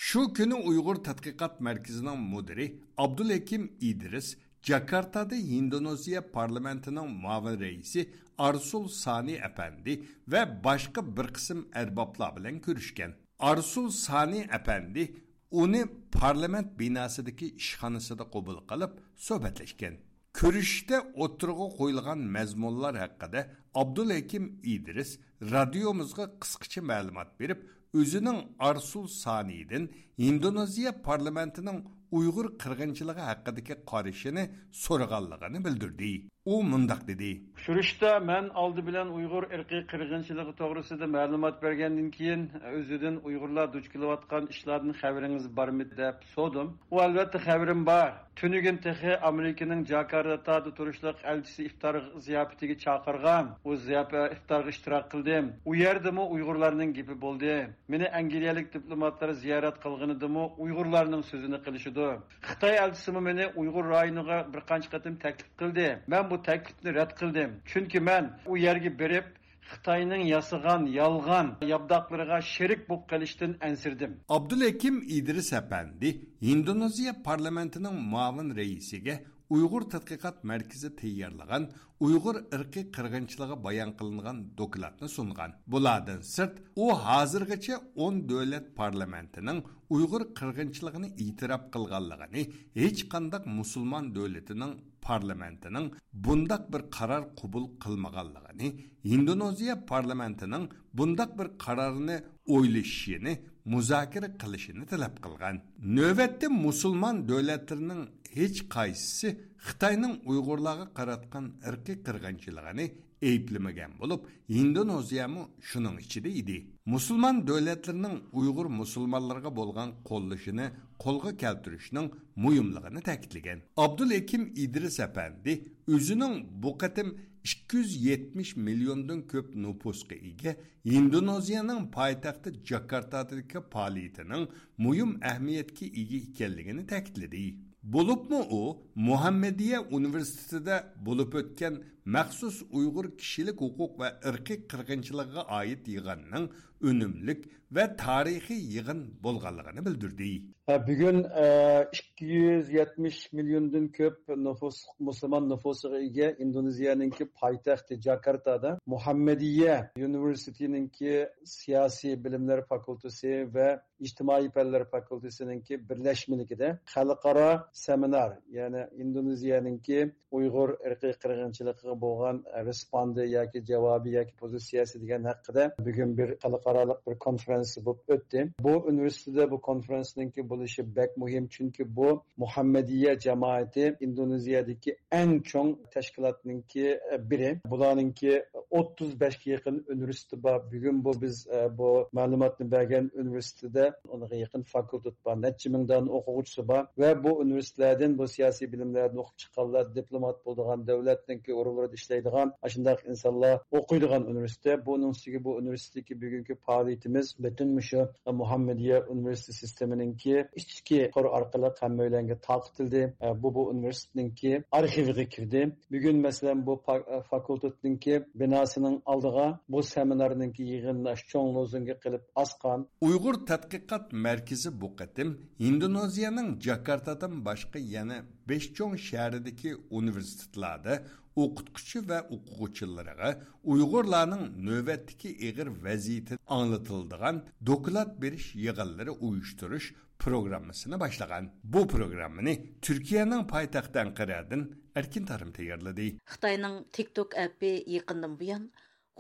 شۇ كۈنى ئۇيغۇر تەتقىقات مەركىزىنىڭ مۇدىرى ئابدۇلھېكىم ئىدرىس جاكارتادا ھىندونېزىيە پارلامېنتىنىڭ مۇئاۋىن رەئىسى ئارسۇل سانى ئەپەندى ۋە باشقا بىر قىسىم ئەربابلار بىلەن كۆرۈشكەن. ئارسۇل سانى ئەپەندى ئۇنى پارلامېنت بىناسىدىكى ئىشخانىسىدا قوبۇل قىلىپ سۆھبەتلەشكەن. كۆرۈشۈشتە ئوتتۇرىغا قويۇلغان مەزمۇنلار ھەققىدە ئابدۇلھېكىم ئىدرىس رادىيومىزغا قىسقىچە مەلۇمات بېرىپ، ئۆزىنىڭ ئارسۇل سانىدىن ھىندونېزىيە پارلامېنتىنىڭ ئۇيغۇر قىرغىنچىلىقى ھەققىدىكى قارىشىنى سورىغانلىقىنى بىلدۈردى. ئۇ مۇنداق دېدى. ئۇچرىشىشتا مەن ئالدى بىلەن ئۇيغۇر ئىرقىي قىرغىنچىلىقى توغرىسىدا مەلۇمات بەرگەندىن كېيىن، ئۆزىدىن ئۇيغۇرلار دۇچ كېلىۋاتقان ئىشلاردىن خەۋىرىڭىز بارمىدى دەپ سورىدىم. ئۇ، ئەلۋەتتە، خەۋىرىم بار. تۈنۈگۈن تېخى ئامېرىكىنىڭ جاكارتادا تۇرۇشلۇق ئەلچىسى ئىپتار زىياپىتىگە چاقىرغان. ئۇ زىياپەت، ئىپتارغا ئىشتىراك قىلدىم. ئۇ يەردىمۇ ئۇيغۇرلارنىڭ گېپى بولدى. مېنى ئەنگلىيەلىك دىپلوماتلار زىيارەت قىلغىنىدىمۇ ئۇيغۇرلارنىڭ سۆزىنى قىلىشىدۇ. خىتاي ئەلچىسىمۇ مېنى ئۇيغۇر رايونىغا بىر قانچە قېتىم تەكلىپ قىلدى. مەن بۇ تەكلىپنى رەت قىلدىم. چۈنكى مەن ئۇ يەرگە بېرىپ، خىتاينىڭ ياسىغان يالغان ياپداقلىرىغا شېرىك بولۇپ قېلىشتىن ئەنسىرىدىم. ئابدۇلھېكىم ئىدرىس ئەپەندى ھىندونېزىيە پارلامېنتىنىڭ مۇئاۋىن رەئىسىگە ئۇيغۇر تەتقىقات مەركىزى تەييارلىغان ئۇيغۇر ئىرقىي قىرغىنچىلىقى بايان قىلىنغان دوكلاتنى سۇنغان. بۇلاردىن سىرت، ئۇ ھازىرغىچە ئون دۆلەت پارلامېنتىنىڭ ئۇيغۇر قىرغىنچىلىقىنى ئېتىراپ قىلغانلىقىنى، ھېچقانداق مۇسۇلمان دۆلىتىنىڭ پارلامېنتىنىڭ بۇنداق بىر قارار قوبۇل قىلمىغانلىقىنى، ھىندونېزىيە پارلامېنتىنىڭ بۇنداق بىر قارارنى ئويلىشىشىنى، مۇزاكىرە قىلىشىنى تەلەپ قىلغان. نۆۋەتتە مۇسۇلمان دۆلەتلىرىنىڭ ھېچقايسىسى خىتاينىڭ ئۇيغۇرلارغا قاراتقان ئىرقىي قىرغىنچىلىقىنى ئەيىبلىمىگەن بولۇپ، ھىندونېزىيەمۇ شۇنىڭ ئىچىدە ئىدى. مۇسۇلمان دۆلەتلىرىنىڭ ئۇيغۇر مۇسۇلمانلىرىغا بولغان قوللىشىنى قولغا كەلتۈرۈشنىڭ مۇھىملىقىنى تەكىتلىگەن. ئابدۇلھېكىم ئىدرىس ئەپەندى ئۆزىنىڭ بۇ قېتىم ئىككى يۈز يەتمىش مىليوندىن كۆپ نوپۇسقا ئىگە ھىندونېزىيەنىڭ پايتەختى جاكارتادىكى پائالىيىتىنىڭ مۇھىم ئەھمىيەتكە ئىگە ئىكەنلىكىنى تەكىتلىدى. بولۇپمۇ ئۇ مۇھەممەدىيە ئۇنىۋېرسىتېتىدا بولۇپ ئۆتكەن مەخسۇس ئۇيغۇر كىشىلىك ھوقۇق ۋە ئىرقىي قىرغىنچىلىقىغا ئائىت يىغىننىڭ ئۈنۈملۈك ۋە تارىخىي يىغىن بولغانلىقىنى بىلدۈردى. ھە، بۈگۈن، ئە، ئىككى يۈز يەتمىش مىليوندىن كۆپ نوپۇس، مۇسۇلمان نوپۇسىغا ئىگە ئىندونېزىيەنىڭكى پايتەختى جاكارتادا مۇھەممەدىيە يۇنىۋېرسىتېتىنىڭكى سىياسىي بىلىملەر فاكۇلتېسى ۋە ئىجتىمائىي پەنلەر فاكۇلتېسىنىڭكى بىرلەشمىلىكىدە خەلقئارا سېمىنار، يەنى ئىندونېزىيەنىڭكى ئۇيغۇر ئىرقىي قىرغىنچىلىقىغا بولغان رېسپوندى ياكى جاۋابى ياكى پوزىتسىيەسى دېگەن ھەققىدە بۈگۈن بىر خەلقئارالىق بىر كونفېرېنس بولۇپ ئۆتتى. بۇ ئۇنىۋېرسىتېتتا بۇ كونفېرېنسنىڭكى بولۇشى بەك مۇھىم، چۈنكى بۇ مۇھەممەدىيە جامائىتى ئىندونېزىيەدىكى ئەڭ چوڭ تەشكىلاتنىڭكى بىرى. بۇلارنىڭكى ئوتتۇز بەشكە يېقىن ئۇنىۋېرسىتېتى بار. بۈگۈن بۇ بىز، ئە، بۇ مەلۇماتنى بەرگەن ئۇنىۋېرسىتېتىدا ئونغا يېقىن فاكۇلتېت بار، نەچچە مىڭ دانە ئوقۇغۇچىسى بار ۋە بۇ ئۇنىۋېرسىتېتلەردىن، بۇ سىياسىي بىلىملەردىن ئوقۇپ چىققانلار، دىپلومات بولىدىغان، دۆلەتنىڭكى ئورۇنلىرىدا ئىشلەيدىغان ئاشۇنداق ئىنسانلار ئوقۇيدىغان ئۇنىۋېرسىتېت. بۇنىڭ ئۈستىگە بۇ ئۇنىۋېرسىتېتتىكى بۈگۈنكى پائالىيىتىمىز پۈتۈن مۇشۇ مۇھەممەدىيە ئۇنىۋېرسىتېت سىستېمىنىڭكى ئىچكى تور ئارقىلىق ھەممەيلەنگە تارقىتىلدى. بۇ، بۇ ئۇنىۋېرسىتېتنىڭكى ئارخىۋىغا كىردى. بۈگۈن، مەسىلەن، بۇ پا-، فاكۇلتېتنىڭكى بىناسىنىڭ ئالدىغا بۇ سېمىنارنىڭكى يىغىنلىنىش چوڭ لوزۇنكى قىلىپ ئاسقان. ئۇيغۇر تەتقىقات مەركىزى بۇ قېتىم ھىندونېزىيەنىڭ جاكارتادىن باشقا يەنە بەش چوڭ شەھىرىدىكى ئۇنىۋېرسىتېتلاردا ئوقۇتقۇچى ۋە ئوقۇغۇچىلىرىغا ئۇيغۇرلارنىڭ نۆۋەتتىكى ئېغىر ۋەزىيىتى ئاڭلىتىلىدىغان دوكلات بېرىش يىغىنلىرى ئۇيۇشتۇرۇش پروگراممىسىنى باشلىغان. بۇ پروگراممىنى تۈركىيەنىڭ پايتەختى ئەنقەرەدىن ئەركىن تارىم تەييارلىدى. خىتاينىڭ تىك توك ئەپى يېقىندىن بۇيان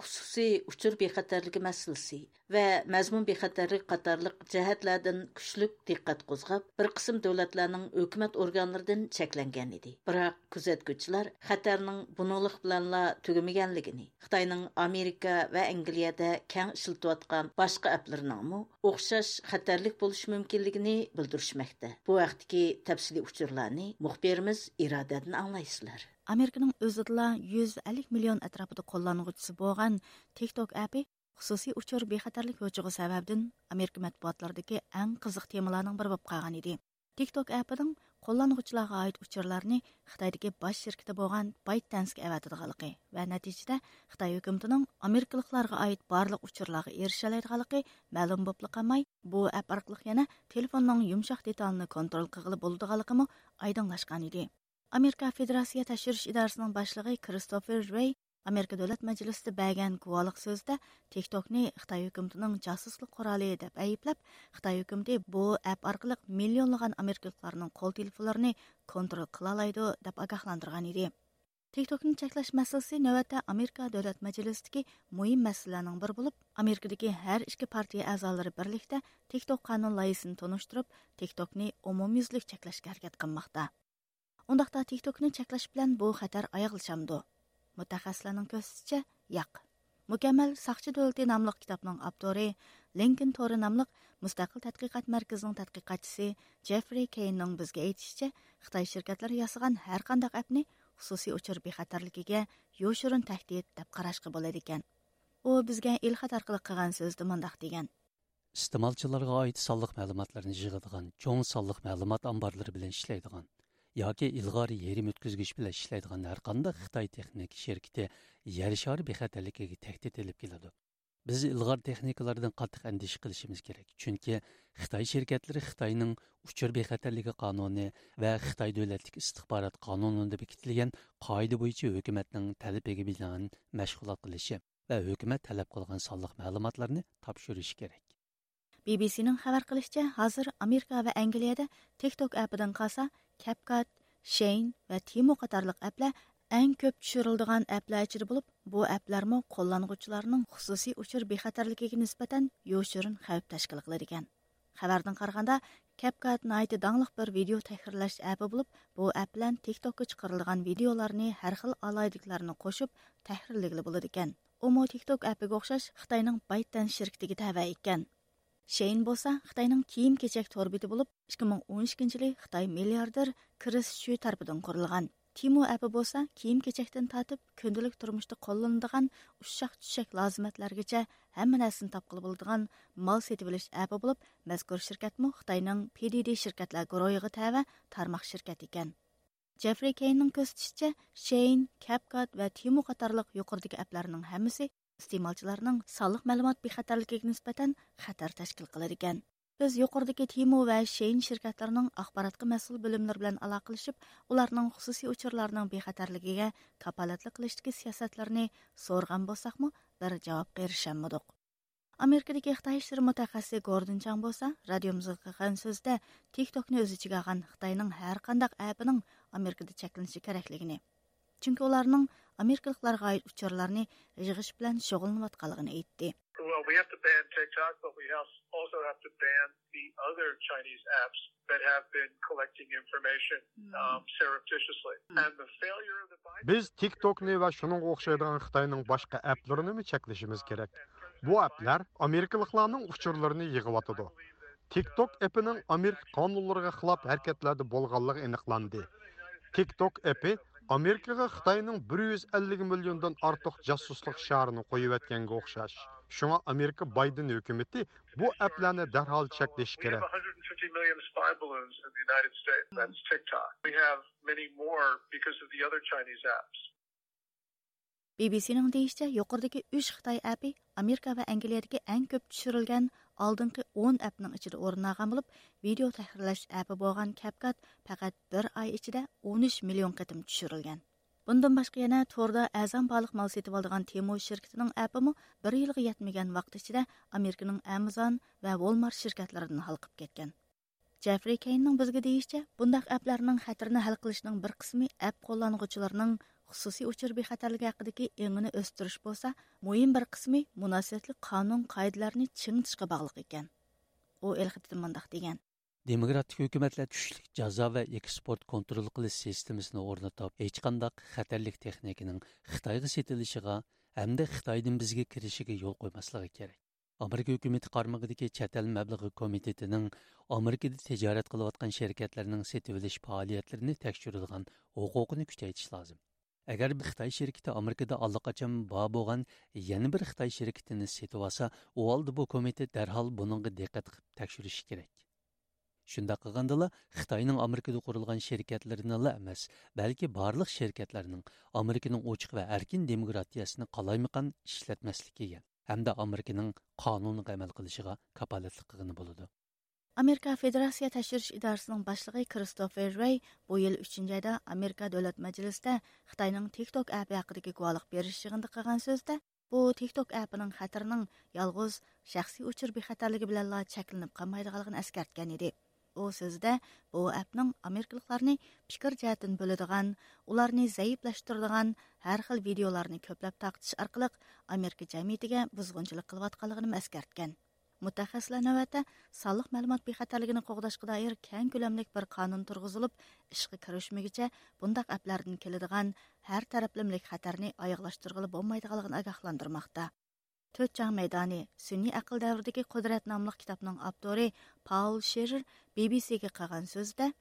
خۇسۇسىي ئۇچۇر بىخەتەرلىكى مەسىلىسى ۋە مەزمۇن بىخەتەرلىكى قاتارلىق جەھەتلەردىن كۈچلۈك دىققەت قوزغاپ، بىر قىسىم دۆلەتلەرنىڭ ھۆكۈمەت ئورگانلىرىدىن چەكلەنگەن ئىدى. بىراق كۆزەتكۈچىلەر خەتەرنىڭ بۇنىڭلىق بىلەنلا تۈگىمىگەنلىكىنى، خىتاينىڭ ئامېرىكا ۋە ئەنگلىيەدە كەڭ ئىشلىتىۋاتقان باشقا ئەپلىرىنىڭمۇ ئوخشاش خەتەرلىك بولۇشى مۇمكىنلىكىنى بىلدۈرۈشمەكتە. بۇ ھەقتىكى تەپسىلىي ئۇچۇرلارنى مۇخبىرىمىز ئىرادەدىن ئاڭلايسىلەر. ئامېرىكىنىڭ ئۆزىدىلا يۈز ئەللىك مىليون ئەتراپىدا قوللانغۇچىسى بولغان تىك توك ئەپى خۇسۇسىي ئۇچۇر بىخەتەرلىك ھوجىغا سەۋەبىدىن ئامېرىكا مەتبۇئاتلىرىدىكى ئەڭ قىزىق تېمىلارنىڭ بىرى بولۇپ قالغان ئىدى. تىك توك ئەپىنىڭ قوللانغۇچىلارغا ئائىت ئۇچۇرلارنى خىتايدىكى باش شىركىتى بولغان بايت دەنسكە ئەۋەتىدىغانلىقى ۋە نەتىجىدە خىتاي ھۆكۈمىتىنىڭ ئامېرىكىلىقلارغا ئائىت بارلىق ئۇچۇرلارغا ئېرىشەلەيدىغانلىقى مەلۇم بولۇپلا قالماي، بۇ ئەپ ئارقىلىق يەنە تېلېفوننىڭ يۇمشاق دېتالىنى كونترول قىلغىلى بولىدىغانلىقىمۇ ئايدىڭلاشقان ئىدى. ئامېرىكا فېدېراتسىيە تەكشۈرۈش ئىدارىسىنىڭ باشلىقى كىرىستوفېر رېي ئامېرىكا دۆلەت مەجلىسىدە بەرگەن گۇۋاھلىق سۆزىدە تىك توكنى خىتاي ھۆكۈمىتىنىڭ جاسۇسلۇق قورالى دەپ ئەيىبلەپ، خىتاي ھۆكۈمىتى بۇ ئەپ ئارقىلىق مىليونلىغان ئامېرىكىلىقلارنىڭ قول تېلېفونلىرىنى كونترول قىلالايدۇ دەپ ئاگاھلاندۇرغان ئىدى. تىك توكنى چەكلەش مەسىلىسى نۆۋەتتە ئامېرىكا دۆلەت مەجلىسىدىكى مۇھىم مەسىلىلەرنىڭ بىرى بولۇپ، ئامېرىكىدىكى ھەر ئىككى پارتىيە ئەزالىرى بىرلىكتە تىك توك قانۇن لايىھىسىنى تونۇشتۇرۇپ، تىك توكنى ئومۇميۈزلۈك چەكلەشكە ھەرىكەت قىلماقتا. ئۇنداقتا تىك توكنى چەكلەش بىلەن بۇ خەتەر ئاياغلىشامدۇ؟ مۇتەخەسسىسلەرنىڭ كۆرسىتىشىچە، ياق. مۇكەممەل ساقچى دۆلىتى ناملىق كىتابنىڭ ئاپتورى، لىنكولن تورى ناملىق مۇستەقىل تەتقىقات مەركىزىنىڭ تەتقىقاتچىسى جېفرى كېيننىڭ بىزگە ئېيتىشىچە، خىتاي شىركەتلىرى ياسىغان ھەر قانداق ئەپنى خۇسۇسىي ئۇچۇر بىخەتەرلىكىگە يوشۇرۇن تەھدىت دەپ قاراشقا بولىدىكەن. ئۇ بىزگە ئېلخەت ئارقىلىق قىلغان سۆزىدە مۇنداق دېگەن. ئىستېمالچىلارغا ئائىت سانلىق مەلۇماتلارنى يىغىدىغان چوڭ سانلىق مەلۇمات ئامبارلىرى بىلەن ئىشلەيدىغان ياكى ئىلغار يېرىم ئۆتكۈزگۈچ بىلەن ئىشلەيدىغان ھەرقانداق خىتاي تېخنىكا شىركىتى يەر شارى بىخەتەرلىكىگە تەھدىت ئېلىپ كېلىدۇ. بىز ئىلغار تېخنىكىلاردىن قاتتىق ئەندىشە قىلىشىمىز كېرەك، چۈنكى خىتاي شىركەتلىرى خىتاينىڭ ئۇچۇر بىخەتەرلىكى قانۇنى ۋە خىتاي دۆلەتلىك ئىستىخبارات قانۇنىدا بېكىتىلگەن قائىدە بويىچە ھۆكۈمەتنىڭ تەلىپىگە بىنائەن مەشغۇلات قىلىشى ۋە ھۆكۈمەت تەلەپ قىلغان سانلىق مەلۇماتلارنى تاپشۇرۇشى كېرەك. بى بى سىنىڭ خەۋەر قىلىشىچە، ھازىر ئامېرىكا ۋە ئەنگلىيەدە تىك توك ئەپىدىن قالسا، كەپكات، شېين ۋە تىمو قاتارلىق ئەپلەر ئەڭ كۆپ چۈشۈرۈلىدىغان ئەپلەر ئىچىدە بولۇپ، بۇ ئەپلەرمۇ قوللانغۇچىلارنىڭ خۇسۇسىي ئۇچۇر بىخەتەرلىكىگە نىسبەتەن يوشۇرۇن خەۋپ تەشكىل قىلىدىكەن. خەۋەردىن قارىغاندا، كەپكات ناھايىتى داڭلىق بىر ۋىدېئو تەھرىرلەش ئەپى بولۇپ، بۇ ئەپ بىلەن تىك توكقا چىقىرىلىدىغان ۋىدېئولارنى ھەر خىل ئالاھىدىلىكلەرنى قوشۇپ تەھرىرلىگىلى بولىدىكەن. ئۇمۇ تىك توك ئەپىگە ئوخشاش خىتاينىڭ بايتدەنس شىركىتىگە تەۋە ئىكەن. شېين بولسا خىتاينىڭ كىيىم كېچەك تور بېتى بولۇپ، ئىككى مىڭ ئون ئىككىنچى يىلى خىتاي مىلياردېر كرىس شۈ تەرىپىدىن قۇرۇلغان. تىمو ئەپى بولسا كىيىم كېچەكتىن تارتىپ كۈندىلىك تۇرمۇشتا قوللىنىدىغان ئۇششاق چۈششەك لازىمەتلەرگىچە ھەممە نەرسىنى تاپقىلى بولىدىغان مال سېتىۋېلىش ئەپى بولۇپ، مەزكۇر شىركەتمۇ خىتاينىڭ پى دى دى شىركەتلەر گۇرۇھىغا تەۋە تارماق شىركەت ئىكەن. جېفرى كېيننىڭ كۆرسىتىشىچە، شېين، كەپكات ۋە تىمو قاتارلىق يۇقىرىدىكى ئەپلەرنىڭ ھەممىسى ئىستېمالچىلارنىڭ سانلىق مەلۇمات بىخەتەرلىكىگە نىسبەتەن خەتەر تەشكىل قىلىدىكەن. بىز يۇقىرىدىكى تىمو ۋە شېين شىركەتلىرىنىڭ ئاخباراتقا مەسئۇل بۆلۈملىرى بىلەن ئالاقىلىشىپ، ئۇلارنىڭ خۇسۇسىي ئۇچۇرلارنىڭ بىخەتەرلىكىگە كاپالەتلىك قىلىشتىكى سىياسەتلىرىنى سورىغان بولساقمۇ، بىر جاۋابقا ئېرىشەلمىدۇق. ئامېرىكىدىكى خىتاي ئىشلىرى مۇتەخەسسىسى گوردىن چاڭ بولسا رادىيومىزغا قىلغان سۆزىدە تىك توكنى ئۆز ئىچىگە ئالغان خىتاينىڭ ھەر قانداق ئەپىنىڭ ئامېرىكىدا چەكلىنىشى كېرەكلىكىنى، چۈنكى ئۇلارنىڭ ئامېرىكىلىقلارغا ئائىت ئۇچۇرلارنى يىغىش بىلەن شۇغۇللىنىۋاتقانلىقىنى ئېيتتى. Well, we have to ban TikTok, but we have, also have to ban the other Chinese apps that have been collecting information, um, surreptitiously. And the failure of the Biden بىز تىك توكنى ۋە شۇنىڭغا ئوخشايدىغان خىتاينىڭ باشقا ئەپلىرىنىمۇ چەكلىشىمىز كېرەك. بۇ ئەپلەر ئامېرىكىلىقلارنىڭ ئۇچۇرلىرىنى يىغىۋاتىدۇ. تىك توك ئېپىنىڭ ئامېرىكا قانۇنلىرىغا خىلاپ ھەرىكەتلەردە بولغانلىقى ئېنىقلاندى. تىك توك ئېپى ئامېرىكىغا خىتاينىڭ بىر يۈز ئەللىك مىليوندىن ئارتۇق جاسۇسلۇق شارىنى قويۇۋەتكەنگە ئوخشاش. شۇڭا ئامېرىكا بايدېن ھۆكۈمىتى بۇ ئەپلەرنى دەرھال چەكلىشى كېرەك. بى بى سىنىڭ دېيىشىچە، يۇقىرىدىكى ئۈچ خىتاي ئەپى ئامېرىكا ۋە ئەنگلىيەدىكى ئەڭ كۆپ چۈشۈرۈلگەن ئالدىنقى ئون ئەپنىڭ ئىچىدە ئورۇن ئالغان بولۇپ، ۋىدېئو تەھرىرلەش ئەپى بولغان كەپكات پەقەت بىر ئاي ئىچىدە ئون ئۈچ مىليون قېتىم چۈشۈرۈلگەن. بۇندىن باشقا يەنە توردا ئەرزان باھالىق مال سېتىۋالىدىغان تېمو شىركىتىنىڭ ئەپىمۇ بىر يىلغا يەتمىگەن ۋاقىت ئىچىدە ئامېرىكىنىڭ ئامازون ۋە ۋولمارت شىركەتلىرىدىن ھالقىپ كەتكەن. جېفرى كېيننىڭ بىزگە دېيىشىچە، بۇنداق ئەپلەرنىڭ خەتىرىنى ھەل قىلىشنىڭ بىر قىسمى ئەپ قوللانغۇچىلارنىڭ خۇسۇسىي ئۇچۇر بىخەتەرلىكى ھەققىدىكى ئېڭىنى ئۆستۈرۈش بولسا، مۇھىم بىر قىسمى مۇناسىۋەتلىك قانۇن قائىدىلەرنى چىڭىتىشقا باغلىق ئىكەن. ئۇ ئېلخېتىدە مۇنداق دېگەن. دېموكراتىك ھۆكۈمەتلەر كۈچلۈك جازا ۋە ئېكسپورت كونترول قىلىش سىستېمىسىنى ئورنىتىپ، ھېچقانداق خەتەرلىك تېخنىكىنىڭ خىتايغا سېتىلىشىغا ھەمدە خىتايدىن بىزگە كىرىشىگە يول قويماسلىقى كېرەك. ئامېرىكا ھۆكۈمىتى قارمىقىدىكى چەت ئەل مەبلىغى كومىتېتىنىڭ ئامېرىكىدا تىجارەت قىلىۋاتقان شىركەتلەرنىڭ سېتىۋېلىش پائالىيەتلىرىنى تەكشۈرىدىغان ھوقۇقىنى كۈچەيتىش لازىم. ئەگەر بىر خىتاي شىركىتى ئامېرىكىدا ئاللىقاچان بار بولغان يەنە بىر خىتاي شىركىتىنى سېتىۋالسا، ئۇ ھالدا بۇ كومىتېت دەرھال بۇنىڭغا دىققەت قىلىپ تەكشۈرۈشى كېرەك. شۇنداق قىلغاندىلا، خىتاينىڭ ئامېرىكىدا قۇرۇلغان شىركەتلىرىنىلا ئەمەس، بەلكى بارلىق شىركەتلەرنىڭ ئامېرىكىنىڭ ئوچۇق ۋە ئەركىن دېموكراتىيەسىنى قالايمىقان ئىشلەتمەسلىكىگە ھەمدە ئامېرىكىنىڭ قانۇنىغا ئەمەل قىلىشىغا كاپالەتلىك قىلغىلى بولىدۇ. ئامېرىكا فېدېراتسىيە تەكشۈرۈش ئىدارىسىنىڭ باشلىقى كىرىستوفېر رېي بۇ يىل ئۈچىنچى ئايدا ئامېرىكا دۆلەت مەجلىسىدە خىتاينىڭ تىك توك ئەپى ھەققىدىكى گۇۋاھلىق بېرىش يىغىنىدا قىلغان سۆزىدە، بۇ تىك توك ئەپىنىڭ خەتىرىنىڭ يالغۇز شەخسىي ئۇچۇر بىخەتەرلىكى بىلەنلا چەكلىنىپ قالمايدىغانلىقىنى ئەسكەرتكەن ئىدى. ئۇ سۆزىدە بۇ ئەپنىڭ ئامېرىكىلىقلارنى پىكىر جەھەتتىن بۆلىدىغان، ئۇلارنى زەئىپلەشتۈرىدىغان ھەر خىل ۋىدېئولارنى كۆپلەپ تارقىتىش ئارقىلىق ئامېرىكا جەمئىيىتىگە بۇزغۇنچىلىق قىلىۋاتقانلىقىنى ئەسكەرتكەن. مۇتەخەسسىسلەر نۆۋەتتە سانلىق مەلۇمات بىخەتەرلىكىنى قوغداشقا دائىر كەڭ كۆلەملىك بىر قانۇن تۇرغۇزۇلۇپ، ئىشقا كىرىشمىگۈچە بۇنداق ئەپلەردىن كېلىدىغان ھەر تەرەپلىمىلىك خەتەرنى ئاياغلاشتۇرغىلى بولمايدىغانلىقىنى ئاگاھلاندۇرماقتا. تۆت چاڭ مەيدانى، سۈنئىي ئەقىل دەۋرىدىكى قۇدرەت ناملىق كىتابنىڭ ئاپتورى پاول شېرېر بى بى سىگە قىلغان سۆزىدە،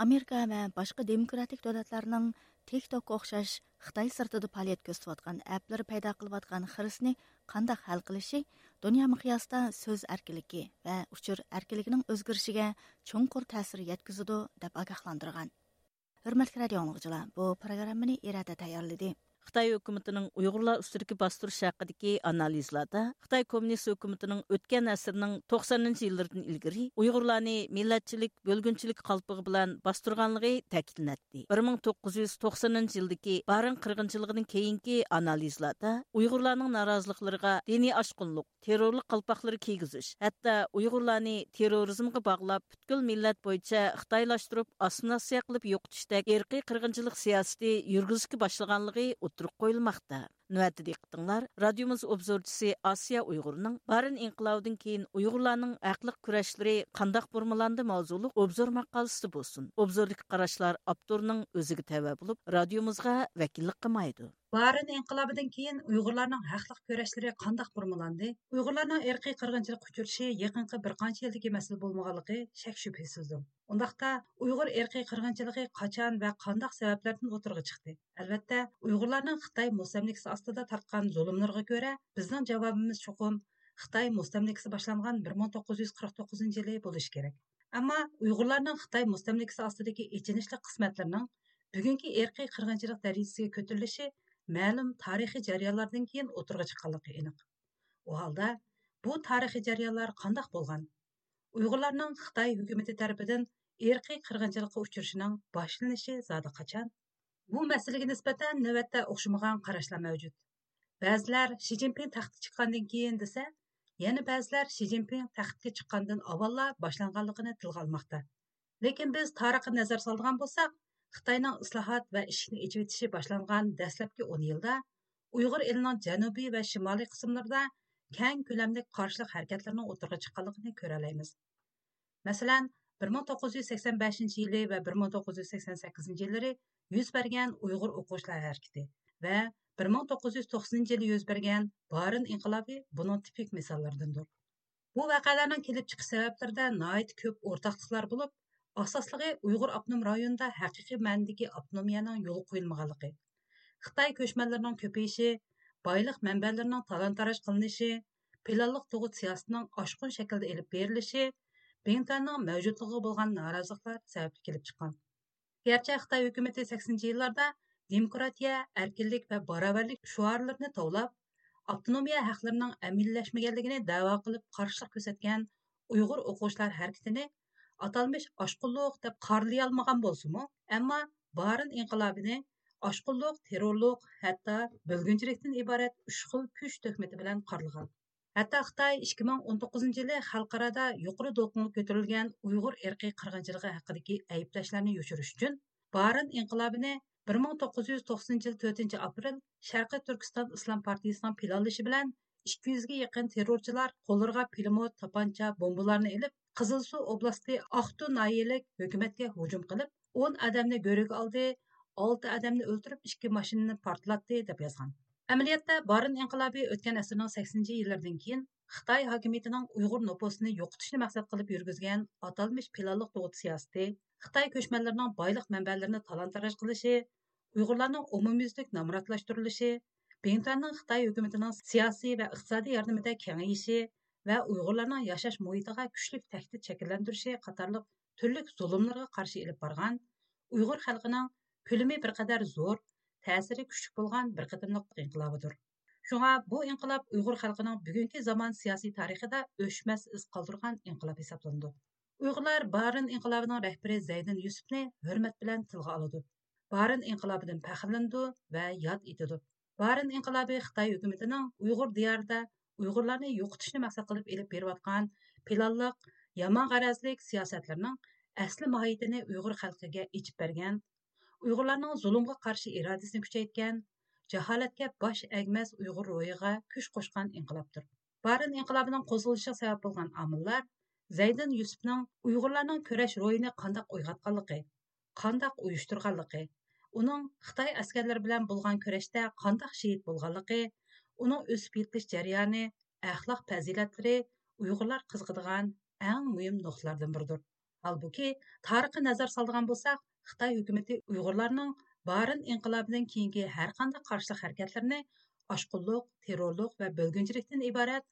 ئامېرىكا ۋە باشقا دېموكراتىك دۆلەتلەرنىڭ تىك توكقا ئوخشاش خىتاي سىرتىدا پائالىيەت كۆرسىتىۋاتقان ئەپلىرى پەيدا قىلىۋاتقان خىرىسنى قانداق ھەل قىلىشى دۇنيا مىقياسىدا سۆز ئەركىنلىكى ۋە ئۇچۇر ئەركىنلىكىنىڭ ئۆزگىرىشىگە چوڭقۇر تەسىر يەتكۈزىدۇ، دەپ ئاگاھلاندۇرغان. ھۆرمەتلىك رادىئو ئاڭلىغۇچىلار، بۇ پروگراممىنى ئىرادە تەييارلىدى. خىتاي ھۆكۈمىتىنىڭ ئۇيغۇرلار ئۈستىدىكى باستۇرۇش ھەققىدىكى ئانالىزلاردا خىتاي كوممۇنىست ھۆكۈمىتىنىڭ ئۆتكەن ئەسىرنىڭ توقسانىنچى يىللىرىدىن ئىلگىرى ئۇيغۇرلارنى مىللەتچىلىك، بۆلگۈنچىلىك قالپىقى بىلەن باستۇرغانلىقى تەكىتلىنەتتى. بىر مىڭ توققۇز يۈز توقسىنىنچى يىلدىكى بارىن قىرغىنچىلىقىدىن كېيىنكى ئانالىزلاردا ئۇيغۇرلارنىڭ نارازىلىقلىرىغا دىنىي ئاشقۇنلۇق، تېررورلۇق قالپاقلىرى كىيگۈزۈش، ھەتتا ئۇيغۇرلارنى تېررورىزمغا باغلاپ، پۈتكۈل مىللەت بويىچە خىتايلاشتۇرۇپ، ئاسسىمىلياتسىيە قىلىپ يوقىتىشتەك ئىرقىي قىرغىنچىلىق سىياسىتى يۈرگۈزۈشكە باشلىغانلىقى ئوتتۇرىغا قويۇلماقتا. نۆۋەتتە دىققىتىڭلار رادىيومىز ئوبزورچىسى ئاسىيا ئۇيغۇرنىڭ بارىن ئىنقىلابىدىن كېيىن ئۇيغۇرلارنىڭ ھەقلىق كۈرەشلىرى قانداق بۇرمىلاندى ماۋزۇلۇق ئوبزور ماقالىسىدە بولسۇن. ئوبزوردىكى قاراشلار ئاپتورنىڭ ئۆزىگە تەۋە بولۇپ، رادىيومىزغا ۋەكىللىك قىلمايدۇ. بارىن ئىنقىلابىدىن كېيىن ئۇيغۇرلارنىڭ ھەقلىق كۈرەشلىرى قانداق بۇرمىلاندى؟ ئۇيغۇرلارنىڭ ئىرقىي قىرغىنچىلىققا ئۇچرىشى يېقىنقى بىر قانچە يىلدىكى مەسىلە بولمىغانلىقى شەك-شۈبھىسىزدۇر. ئۇنداقتا، ئۇيغۇر ئىرقىي قىرغىنچىلىقى قاچان ۋە قانداق سەۋەبلەردىن ئوتتۇرىغا چىقتى؟ ئەلۋەتتە، ئۇيغۇرلارنىڭ خىتاي مۇستەملىكىسى ئاستىدا تارتقان زۇلۇملىرىغا كۆرە، بىزنىڭ جاۋابىمىز چوقۇم خىتاي مۇستەملىكىسى باشلانغان بىر مىڭ توققۇز يۈز قىرىق توققۇزىنچى يىلى بولۇشى كېرەك. ئەمما ئۇيغۇرلارنىڭ خىتاي مۇستەملىكىسى ئاستىدىكى ئېچىنىشلىق قىسمەتلىرىنىڭ بۈگۈنكى ئىرقىي قىرغىنچىلىق دەرىجىسىگە كۆتۈرۈلۈشى مەلۇم تارىخىي جەريانلاردىن كېيىن ئوتتۇرىغا چىققانلىقى ئېنىق. ئۇ ھالدا، بۇ تارىخىي جەريانلار قانداق بولغان؟ ئۇيغۇرلارنىڭ خىتاي ھۆكۈمىتى تەرىپىدىن ئىرقىي قىرغىنچىلىققا ئۇچرىشىنىڭ باشلىنىشى زادى قاچان؟ بۇ مەسىلىگە نىسبەتەن نۆۋەتتە ئوخشىمىغان قاراشلار مەۋجۇت. بەزىلەر شى جىنپىڭ تەختكە چىققاندىن كېيىن دېسە، يەنە بەزىلەر شى جىنپىڭ تەختكە چىققاندىن ئاۋۋاللا باشلانغانلىقىنى تىلغا ئالماقتا. لېكىن بىز تارىخقا نەزەر سالىدىغان بولساق، خىتاينىڭ ئىسلاھات ۋە ئىشىكنى ئېچىۋېتىشى باشلانغان دەسلەپكى ئون يىلدا ئۇيغۇر ئېلىنىڭ جەنۇبىي ۋە شىمالىي قىسىملىرىدا كەڭ كۆلەملىك قارشىلىق ھەرىكەتلىرىنىڭ ئوتتۇرىغا چىققانلىقىنى كۆرەلەيمىز. مەسىلەن، بىر مىڭ توققۇز يۈز سەكسەن بەشىنچى يىلى ۋە بىر مىڭ توققۇز يۈز سەكسەن سەككىزىنچى يىللىرى يۈز بەرگەن ئۇيغۇر ئوقۇغۇچىلار ھەرىكىتى ۋە بىر مىڭ توققۇز يۈز توقسىنىنچى يىلى يۈز بەرگەن بارىن ئىنقىلابى بۇنىڭ تىپىك مىساللىرىدىندۇر. بۇ ۋەقەلەرنىڭ كېلىپ چىقىش سەۋەبلىرىدە ناھايىتى كۆپ ئورتاقلىقلار بولۇپ، ئاساسلىقى ئۇيغۇر ئاپتونوم رايونىدا ھەقىقىي مەنىدىكى ئاپتونومىيەنىڭ يولغا قويۇلمىغانلىقى، خىتاي كۆچمەنلىرىنىڭ كۆپىيىشى، بايلىق مەنبەلىرىنىڭ تالان-تاراج قىلىنىشى، پىلانلىق تۇغۇت سىياسىتىنىڭ ئاشقۇن شەكىلدە ئېلىپ بېرىلىشى، بىڭتۈەننىڭ مەۋجۇتلۇقىغا بولغان نارازىلىقلار سەۋەبلىك كېلىپ چىققان. گەرچە خىتاي ھۆكۈمىتى سەكسىنىنچى يىللاردا دېموكراتىيە، ئەركىنلىك ۋە باراۋەرلىك شوئارلىرىنى توۋلاپ، ئاپتونومىيە ھەقلىرىنىڭ ئەمەلىيلەشمىگەنلىكىنى دەۋا قىلىپ قارشىلىق كۆرسەتكەن ئۇيغۇر ئوقۇغۇچىلار ھەرىكىتىنى ئاتالمىش ئاشقۇنلۇق دەپ قارىلىيالمىغان بولسىمۇ، ئەمما بارىن ئىنقىلابىنى ئاشقۇنلۇق، تېررورلۇق، ھەتتا بۆلگۈنچىلىكتىن ئىبارەت ئۈچ خىل كۈچ تۆھمىتى بىلەن قارىلىغان. ھەتتا خىتاي ئىككى مىڭ ئون توققۇزىنچى يىلى خەلقئارادا يۇقىرى دولقۇنغا كۆتۈرۈلگەن ئۇيغۇر ئىرقىي قىرغىنچىلىقى ھەققىدىكى ئەيىبلەشلەرنى يوشۇرۇش ئۈچۈن، بارىن ئىنقىلابىنى بىر مىڭ توققۇز يۈز توقسىنىنچى يىل تۆتىنچى ئاپرېل شەرقىي تۈركىستان ئىسلام پارتىيىسىنىڭ پىلانلىشى بىلەن ئىككى يۈزگە يېقىن تېررورچىلار قوللىرىغا پىلىموت، تاپانچا، بومبىلارنى ئېلىپ، قىزىلسۇ ئوبلاستى ئاقتۇ ناھىيەلىك ھۆكۈمەتكە ھۇجۇم قىلىپ، ئون ئادەمنى گۆرۈگە ئالدى، ئالتە ئادەمنى ئۆلتۈرۈپ، ئىككى ماشىنىنى پارتلاتتى، دەپ يازغان. ئەمەلىيەتتە، بارىن ئىنقىلابى ئۆتكەن ئەسىرنىڭ سەكسىنىنچى يىللىرىدىن كېيىن خىتاي ھاكىمىيىتىنىڭ ئۇيغۇر نوپۇسىنى يوقىتىشنى مەقسەت قىلىپ يۈرگۈزگەن ئاتالمىش پىلانلىق تۇغۇت سىياسىتى، خىتاي كۆچمەنلىرىنىڭ بايلىق مەنبەلىرىنى تالان-تاراج قىلىشى، ئۇيغۇرلارنىڭ ئومۇميۈزلۈك نامراتلاشتۇرۇلۇشى، بىڭتۈەننىڭ خىتاي ھۆكۈمىتىنىڭ سىياسىي ۋە ئىقتىسادىي ياردىمىدە كېڭىيىشى ۋە ئۇيغۇرلارنىڭ ياشاش مۇھىتىغا كۈچلۈك تەھدىت شەكىللەندۈرۈشى قاتارلىق تۈرلۈك زۇلۇملىرىغا قارشى ئېلىپ بارغان، ئۇيغۇر خەلقىنىڭ كۆلىمى بىر قەدەر زور، تەسىرى كۈچلۈك بولغان بىر قېتىملىق ئىنقىلابىدۇر. شۇڭا بۇ ئىنقىلاب ئۇيغۇر خەلقىنىڭ بۈگۈنكى زامان سىياسىي تارىخىدا ئۆچمەس ئىز قالدۇرغان ئىنقىلاب ھېسابلىنىدۇ. ئۇيغۇرلار بارىن ئىنقىلابىنىڭ رەھبىرى زەيدىن يۈسۈپنى ھۆرمەت بىلەن تىلغا ئالىدۇ. بارىن ئىنقىلابىدىن پەخىرلىنىدۇ ۋە ياد ئېتىدۇ. بارىن ئىنقىلابى خىتاي ھۆكۈمىتىنىڭ ئۇيغۇر دىيارىدا ئۇيغۇرلارنى يوقىتىشنى مەقسەت قىلىپ ئېلىپ بېرىۋاتقان پىلانلىق، يامان غەرەزلىك سىياسەتلىرىنىڭ ئەسلى ماھىيىتىنى ئۇيغۇر خەلقىگە ئېچىپ بەرگەن، ئۇيغۇرلارنىڭ زۇلۇمغا قارشى ئىرادىسىنى كۈچەيتكەن، جاھالەتكە باش ئەگمەس ئۇيغۇر روھىغا كۈچ قوشقان ئىنقىلابتۇر. بارىن ئىنقىلابىنىڭ قوزغىلىشىغا سەۋەب بولغان ئامىللار زەيدىن يۈسۈپنىڭ ئۇيغۇرلارنىڭ كۈرەش روھىنى قانداق ئويغاتقانلىقى، قانداق ئۇيۇشتۇرغانلىقى، ئۇنىڭ خىتاي ئەسكەرلىرى بىلەن بولغان كۈرەشتە قانداق شېھىت بولغانلىقى، ئۇنىڭ ئۆسۈپ يېتىلىش جەريانى، ئەخلاق پەزىلەتلىرى ئۇيغۇرلار قىزىقىدىغان ئەڭ مۇھىم نۇقتىلاردىن بىرىدۇر. ھالبۇكى، تارىخقا نەزەر سالىدىغان بولساق، خىتاي ھۆكۈمىتى ئۇيغۇرلارنىڭ بارىن ئىنقىلابىدىن كېيىنكى ھەرقانداق قارشىلىق ھەرىكەتلىرىنى ئاشقۇنلۇق، تېررورلۇق ۋە بۆلگۈنچىلىكتىن ئىبارەت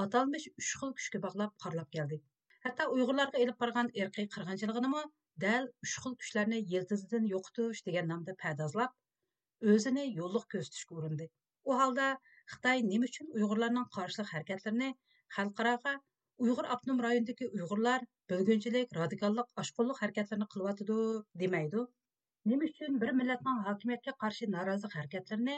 ئاتالمىش ئۈچ خىل كۈچكە باغلاپ قارىلاپ كەلدى. ھەتتا ئۇيغۇرلارغا ئېلىپ بارغان ئىرقىي قىرغىنچىلىقىنىمۇ دەل ئۈچ خىل كۈچلەرنى يىلتىزىدىن يوقىتىش دېگەن نامدا پەردازلاپ، ئۆزىنى يوللۇق كۆرسىتىشكە ئۇرۇندى. ئۇ ھالدا خىتاي نېمە ئۈچۈن ئۇيغۇرلارنىڭ قارشىلىق ھەرىكەتلىرىنى خەلقئاراغا ئۇيغۇر ئاپتونوم رايونىدىكى ئۇيغۇرلار بۆلگۈنچىلىك، رادىكاللىق، ئاشقۇنلۇق ھەرىكەتلىرىنى قىلىۋاتىدۇ دېمەيدۇ؟ نېمە ئۈچۈن بىر مىللەتنىڭ ھاكىمىيەتكە قارشى نارازىلىق ھەرىكەتلىرىنى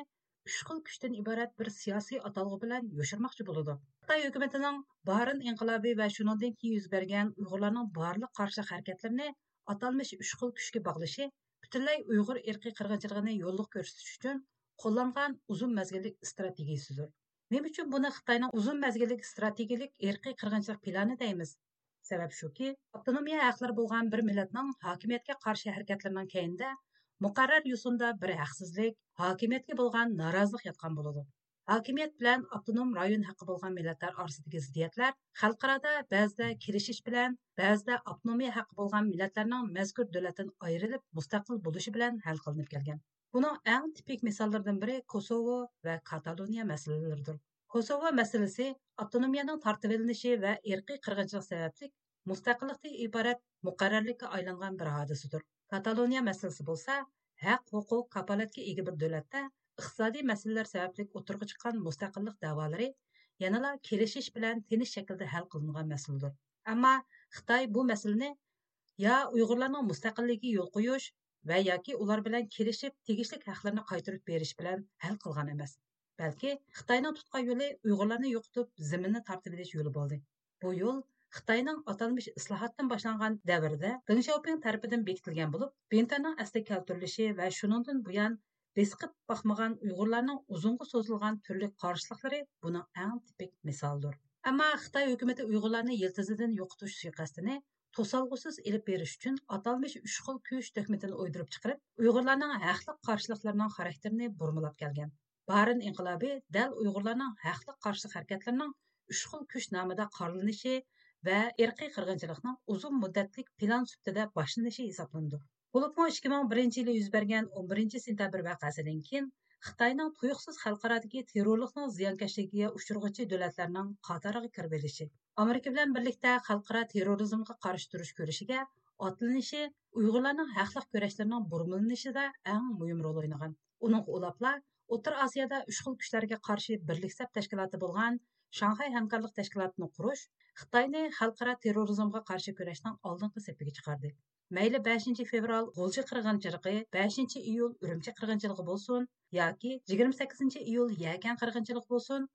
ئۈچ خىل كۈچتىن ئىبارەت بىر سىياسىي ئاتالغۇ بىلەن يوشۇرماقچى بولىدۇ؟ خىتاي ھۆكۈمىتىنىڭ بارىن ئىنقىلابى ۋە شۇنىڭدىن كېيىن يۈز بەرگەن ئۇيغۇرلارنىڭ بارلىق قارشىلىق ھەرىكەتلىرىنى ئاتالمىش ئۈچ خىل كۈچكە باغلىشى پۈتۈنلەي ئۇيغۇر ئىرقىي قىرغىنچىلىقىنى يوللۇق كۆرسىتىش ئۈچۈن قوللانغان ئۇزۇن مەزگىللىك ئىستراتېگىيىسىدۇر. نېمە ئۈچۈن بۇنى خىتاينىڭ ئۇزۇن مەزگىللىك ئىستراتېگىيىلىك ئىرقىي قىرغىنچىلىق پىلانى دەيمىز؟ سەۋەب شۇكى، ئاپتونومىيە ھەقلىرى بولغان بىر مىللەتنىڭ ھاكىمىيەتكە قارشى ھەرىكەتلىرىنىڭ كەينىدە مۇقەررەر يوسۇندا بىر ھەقسىزلىك، ھاكىمىيەتكە بولغان نارازىلىق ياتقان بولىدۇ. ھاكىمىيەت بىلەن ئاپتونوم رايون ھەققى بولغان مىللەتلەر ئارىسىدىكى زىددىيەتلەر خەلقئارادا بەزىدە كېلىشىش بىلەن، بەزىدە ئاپتونومىيە ھەققى بولغان مىللەتلەرنىڭ مەزكۇر دۆلەتتىن ئايرىلىپ مۇستەقىل بولۇشى بىلەن ھەل قىلىنىپ كەلگەن. بۇنىڭ ئەڭ تىپىك مىساللىرىدىن بىرى كوسوۋو ۋە كاتالونىيە مەسىلىلىرىدۇر. كوسوۋو مەسىلىسى ئاپتونومىيەنىڭ تارتىۋېلىنىشى ۋە ئىرقىي قىرغىنچىلىق سەۋەبلىك مۇستەقىللىقتىن ئىبارەت مۇقەررەرلىككە ئايلانغان بىر ھادىسىدۇر. كاتالونىيە مەسىلىسى بولسا ھەق، ھوقۇق، كاپالەتكە ئىگە بىر دۆلەتتە ئىقتىسادىي مەسىلىلەر سەۋەبلىك ئوتتۇرىغا چىققان مۇستەقىللىق دەۋالىرى يەنىلا كېلىشىش بىلەن تىنچ شەكىلدە ھەل قىلىنغان مەسىلىدۇر. ئەمما خىتاي بۇ مەسىلىنى يا ئۇيغۇرلارنىڭ مۇستەقىللىكىگە يول قويۇش ۋە ياكى ئۇلار بىلەن كېلىشىپ تېگىشلىك ھەقلىرىنى قايتۇرۇپ بېرىش بىلەن ھەل قىلغان ئەمەس. بەلكى خىتاينىڭ تۇتقان يولى ئۇيغۇرلارنى يوقىتىپ زېمىننى تارتىۋېلىش يولى بولدى. بۇ يول خىتاينىڭ ئاتالمىش ئىسلاھاتتىن باشلانغان دەۋرىدە دېڭ شياۋپىڭ تەرىپىدىن بېكىتىلگەن بولۇپ، بىڭتۈەننىڭ ئەسلىگە كەلتۈرۈلۈشى ۋە شۇنىڭدىن بۇيان بېسىقىپ باقمىغان ئۇيغۇرلارنىڭ ئۇزۇنغا سوزۇلغان تۈرلۈك قارشىلىقلىرى بۇنىڭ ئەڭ تىپىك مىسالىدۇر. ئەمما خىتاي ھۆكۈمىتى ئۇيغۇرلارنى يىلتىزىدىن يوقىتىش سۇيىقەستىنى توسالغۇسىز ئېلىپ بېرىش ئۈچۈن ئاتالمىش ئۈچ خىل كۈچ تۆھمىتىنى ئويدۇرۇپ چىقىرىپ، ئۇيغۇرلارنىڭ ھەقلىق قارشىلىقلىرىنىڭ خاراكتېرىنى بۇرمىلاپ كەلگەن. بارىن ئىنقىلابى دەل ئۇيغۇرلارنىڭ ھەقلىق قارشىلىق ھەرىكەتلىرىنىڭ ئۈچ خىل كۈچ نامىدا قارىلىنىشى ۋە ئىرقىي قىرغىنچىلىقنىڭ ئۇزۇن مۇددەتلىك پىلان سۈپىتىدە باشلىنىشى ھېسابلىنىدۇ. بولۇپمۇ ئىككى مىڭ بىرىنچى يىلى يۈز بەرگەن ئون بىرىنچى سېنتەبىر ۋەقەسىدىن كېيىن خىتاينىڭ تۇيۇقسىز خەلقئارادىكى تېررورلۇقنىڭ زىيانكەشلىكىگە ئۇچرىغۇچى دۆلەتلەرنىڭ قاتارىغا كىرىۋېلىشى، ئامېرىكا بىلەن بىرلىكتە خەلقئارا تېررورىزمغا قارشى تۇرۇش كۈرىشىگە ئاتلىنىشى ئۇيغۇرلارنىڭ ھەقلىق كۈرەشلىرىنىڭ بۇرمىلىنىشىدا ئەڭ مۇھىم رول ئوينىغان. ئۇنىڭغا ئۇلاپلا ئوتتۇرا ئاسىيادا ئۈچ خىل كۈچلەرگە قارشى بىرلىك سەپ تەشكىلاتى بولغان شاڭخەي ھەمكارلىق تەشكىلاتىنى قۇرۇش خىتاينى خەلقئارا تېررورىزمغا قارشى كۈرەشنىڭ ئالدىنقى سېپىگە چىقاردى. مەيلى بەشىنچى فېۋرال غۇلجا قىرغىنچىلىقى، بەشىنچى ئىيۇل ئۈرۈمچى قىرغىنچىلىقى بولسۇن ياكى يىگىرمە سەككىزىنچى ئىيۇل يەكەن قىرغىنچىلىقى بولسۇن،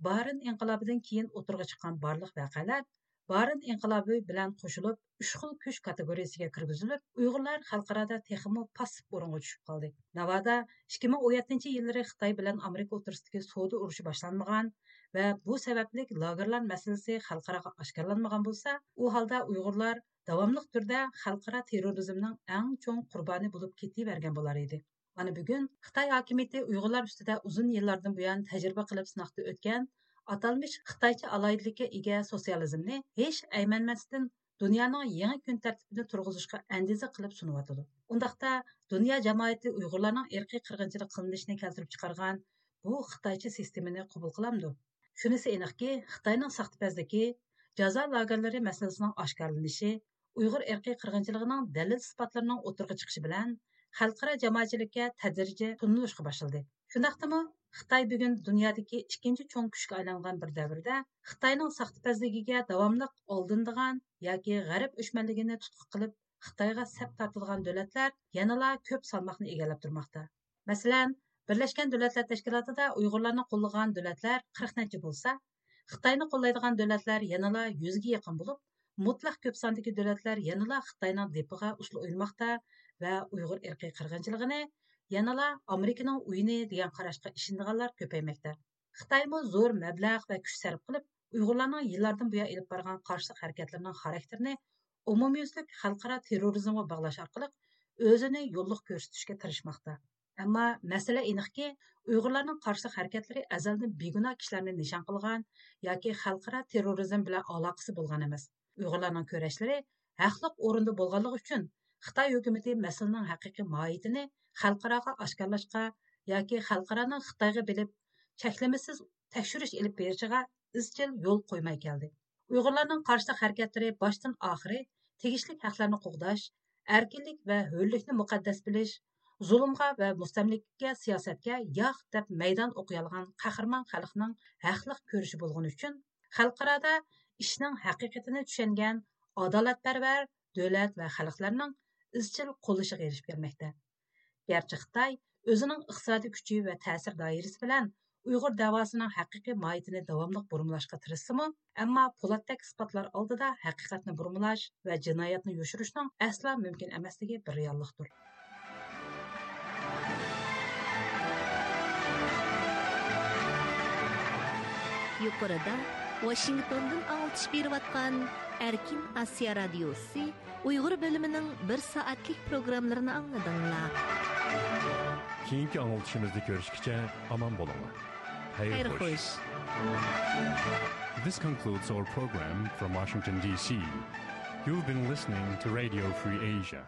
بارىن ئىنقىلابىدىن كېيىن ئوتتۇرىغا چىققان بارلىق ۋەقەلەر بارىن ئىنقىلابى بىلەن قوشۇلۇپ، ئۈچ خىل كۈچ كاتېگورىيىسىگە كىرگۈزۈلۈپ، ئۇيغۇرلار خەلقئارادا تېخىمۇ پاسسىپ ئورۇنغا چۈشۈپ قالدى. ناۋادا ئىككى مىڭ ئون يەتتىنچى يىللىرى خىتاي بىلەن ئامېرىكا ئوتتۇرىسىدىكى سودا ئۇرۇشى باشلانمىغان ۋە بۇ سەۋەبلىك لاگېرلار مەسىلىسى خەلقئاراغا ئاشكارىلانمىغان بولسا، ئۇ ھالدا ئۇيغۇرلار داۋاملىق تۈردە خەلقئارا تېررورىزمنىڭ ئەڭ چوڭ قۇربانى بولۇپ كېتىۋەرگەن بولار ئىدى. مانا بۈگۈن خىتاي ھاكىمىيىتى ئۇيغۇرلار ئۈستىدە ئۇزۇن يىللاردىن بۇيان تەجرىبە قىلىپ سىناقتا ئۆتكەن ئاتالمىش خىتايچە ئالاھىدىلىككە ئىگە سوتسىيالىزمنى ھېچ ئەيمەنمەستىن دۇنيانىڭ يېڭى كۈن تەرتىپىنى تۇرغۇزۇشقا ئەندىزە قىلىپ سۇنۇۋاتىدۇ. ئۇنداقتا دۇنيا جامائىتى ئۇيغۇرلارنىڭ ئىرقىي قىرغىنچىلىق قىلىنىشىنى كەلتۈرۈپ چىقارغان بۇ خىتايچە سىستېمىنى قوبۇل قىلامدۇ؟ شۇنىسى ئېنىقكى، خىتاينىڭ ساختىپەزلىكى، جازا لاگېرلىرى مەسىلىسىنىڭ ئاشكارىلىنىشى، ئۇيغۇر ئىرقىي قىرغىنچىلىقىنىڭ دەلىل-ئىسپاتلىرىنىڭ ئوتتۇرىغا چىقىشى بىلەن خەلقئارا جامائەتچىلىككە تەدرىجىي تونۇلۇشقا باشلىدى. شۇنداقتىمۇ، خىتاي بۈگۈن دۇنيادىكى ئىككىنچى چوڭ كۈچكە ئايلانغان بىر دەۋردە خىتاينىڭ ساختىپەزلىكىگە داۋاملىق ئالدىنىدىغان ياكى غەرب ئۆچمەنلىكىنى تۇتقا قىلىپ خىتايغا سەپ تارتىدىغان دۆلەتلەر يەنىلا كۆپ سالماقنى ئىگىلەپ تۇرماقتا. مەسىلەن، بىرلەشكەن دۆلەتلەر تەشكىلاتىدا ئۇيغۇرلارنى قوللىغان دۆلەتلەر قىرىق نەچچە بولسا، خىتاينى قوللايدىغان دۆلەتلەر يەنىلا يۈزگە يېقىن بولۇپ، مۇتلەق كۆپ ساندىكى دۆلەتلەر يەنىلا خىتاينىڭ دېپىغا ئۇسسۇل ئوينىماقتا ۋە ئۇيغۇر ئىرقىي قىرغىنچىلىقىنى يەنىلا ئامېرىكىنىڭ ئويۇنى دېگەن قاراشقا ئىشىنىدىغانلار كۆپەيمەكتە. خىتايمۇ زور مەبلەغ ۋە كۈچ سەرپ قىلىپ، ئۇيغۇرلارنىڭ يىللاردىن بۇيان ئېلىپ بارغان قارشىلىق ھەرىكەتلىرىنىڭ خاراكتېرىنى ئومۇميۈزلۈك خەلقئارا تېررورىزمغا باغلاش ئارقىلىق ئۆزىنى يوللۇق كۆرسىتىشكە تىرىشماقتا. ئەمما مەسىلە ئېنىقكى، ئۇيغۇرلارنىڭ قارشىلىق ھەرىكەتلىرى ئەزەلدىن بىگۇناھ كىشىلەرنى نىشان قىلغان ياكى خەلقئارا تېررورىزم بىلەن ئالاقىسى بولغان ئەمەس. ئۇيغۇرلارنىڭ كۈرەشلىرى ھەقلىق ئورۇندا بولغانلىقى ئۈچۈن، خىتاي ھۆكۈمىتى مەسىلىنىڭ ھەقىقىي ماھىيىتىنى خەلقئاراغا ئاشكارىلاشقا ياكى خەلقئارانىڭ خىتايغا بېلىپ چەكلىمىسىز تەكشۈرۈش ئېلىپ بېرىشىغا ئىزچىل يول قويماي كەلدى. ئۇيغۇرلارنىڭ قارشىلىق ھەرىكەتلىرى باشتىن ئاخىرى تېگىشلىك ھەقلەرنى قوغداش، ئەركىنلىك ۋە ھۆرلۈكنى مۇقەددەس بىلىش، زۇلۇمغا ۋە مۇستەملىكىگە سىياسەتكە ياق دەپ مەيدان ئوقۇيالىغان قەھرىمان خەلقنىڭ ھەقلىق كۈرىشى بولغىنى ئۈچۈن، خەلقئارادا ئىشنىڭ ھەقىقىتىنى چۈشەنگەن ئادالەتپەرۋەر دۆلەت ۋە خەلقلەرنىڭ ئىزچىل قوللىشىغا ئېرىشىپ كەلمەكتە. گەرچە خىتاي ئۆزىنىڭ ئىقتىسادىي كۈچى ۋە تەسىر دائىرىسى بىلەن ئۇيغۇر دەۋاسىنىڭ ھەقىقىي ماھىيىتىنى داۋاملىق بۇرمىلاشقا تىرىشسىمۇ، ئەمما پولاتتەك ئىسپاتلار ئالدىدا ھەقىقەتنى بۇرمىلاش ۋە جىنايەتنى يوشۇرۇشنىڭ ئەسلا مۇمكىن ئەمەسلىكى بىر رېئاللىقتۇر. يۇقىرىدا ۋاشىنگتوندىن ئاڭلىتىش بېرىۋاتقان ئەركىن ئاسىيا رادىيوسى ئۇيغۇر بۆلۈمىنىڭ بىر سائەتلىك پروگراممىلىرىنى ئاڭلىدىڭلار. كېيىنكى ئاڭلىتىشىمىزدا كۆرۈشكىچە ئامان بولۇڭلار. خەير خوش. This concludes our program from Washington, D C. You've been listening to Radio Free Asia.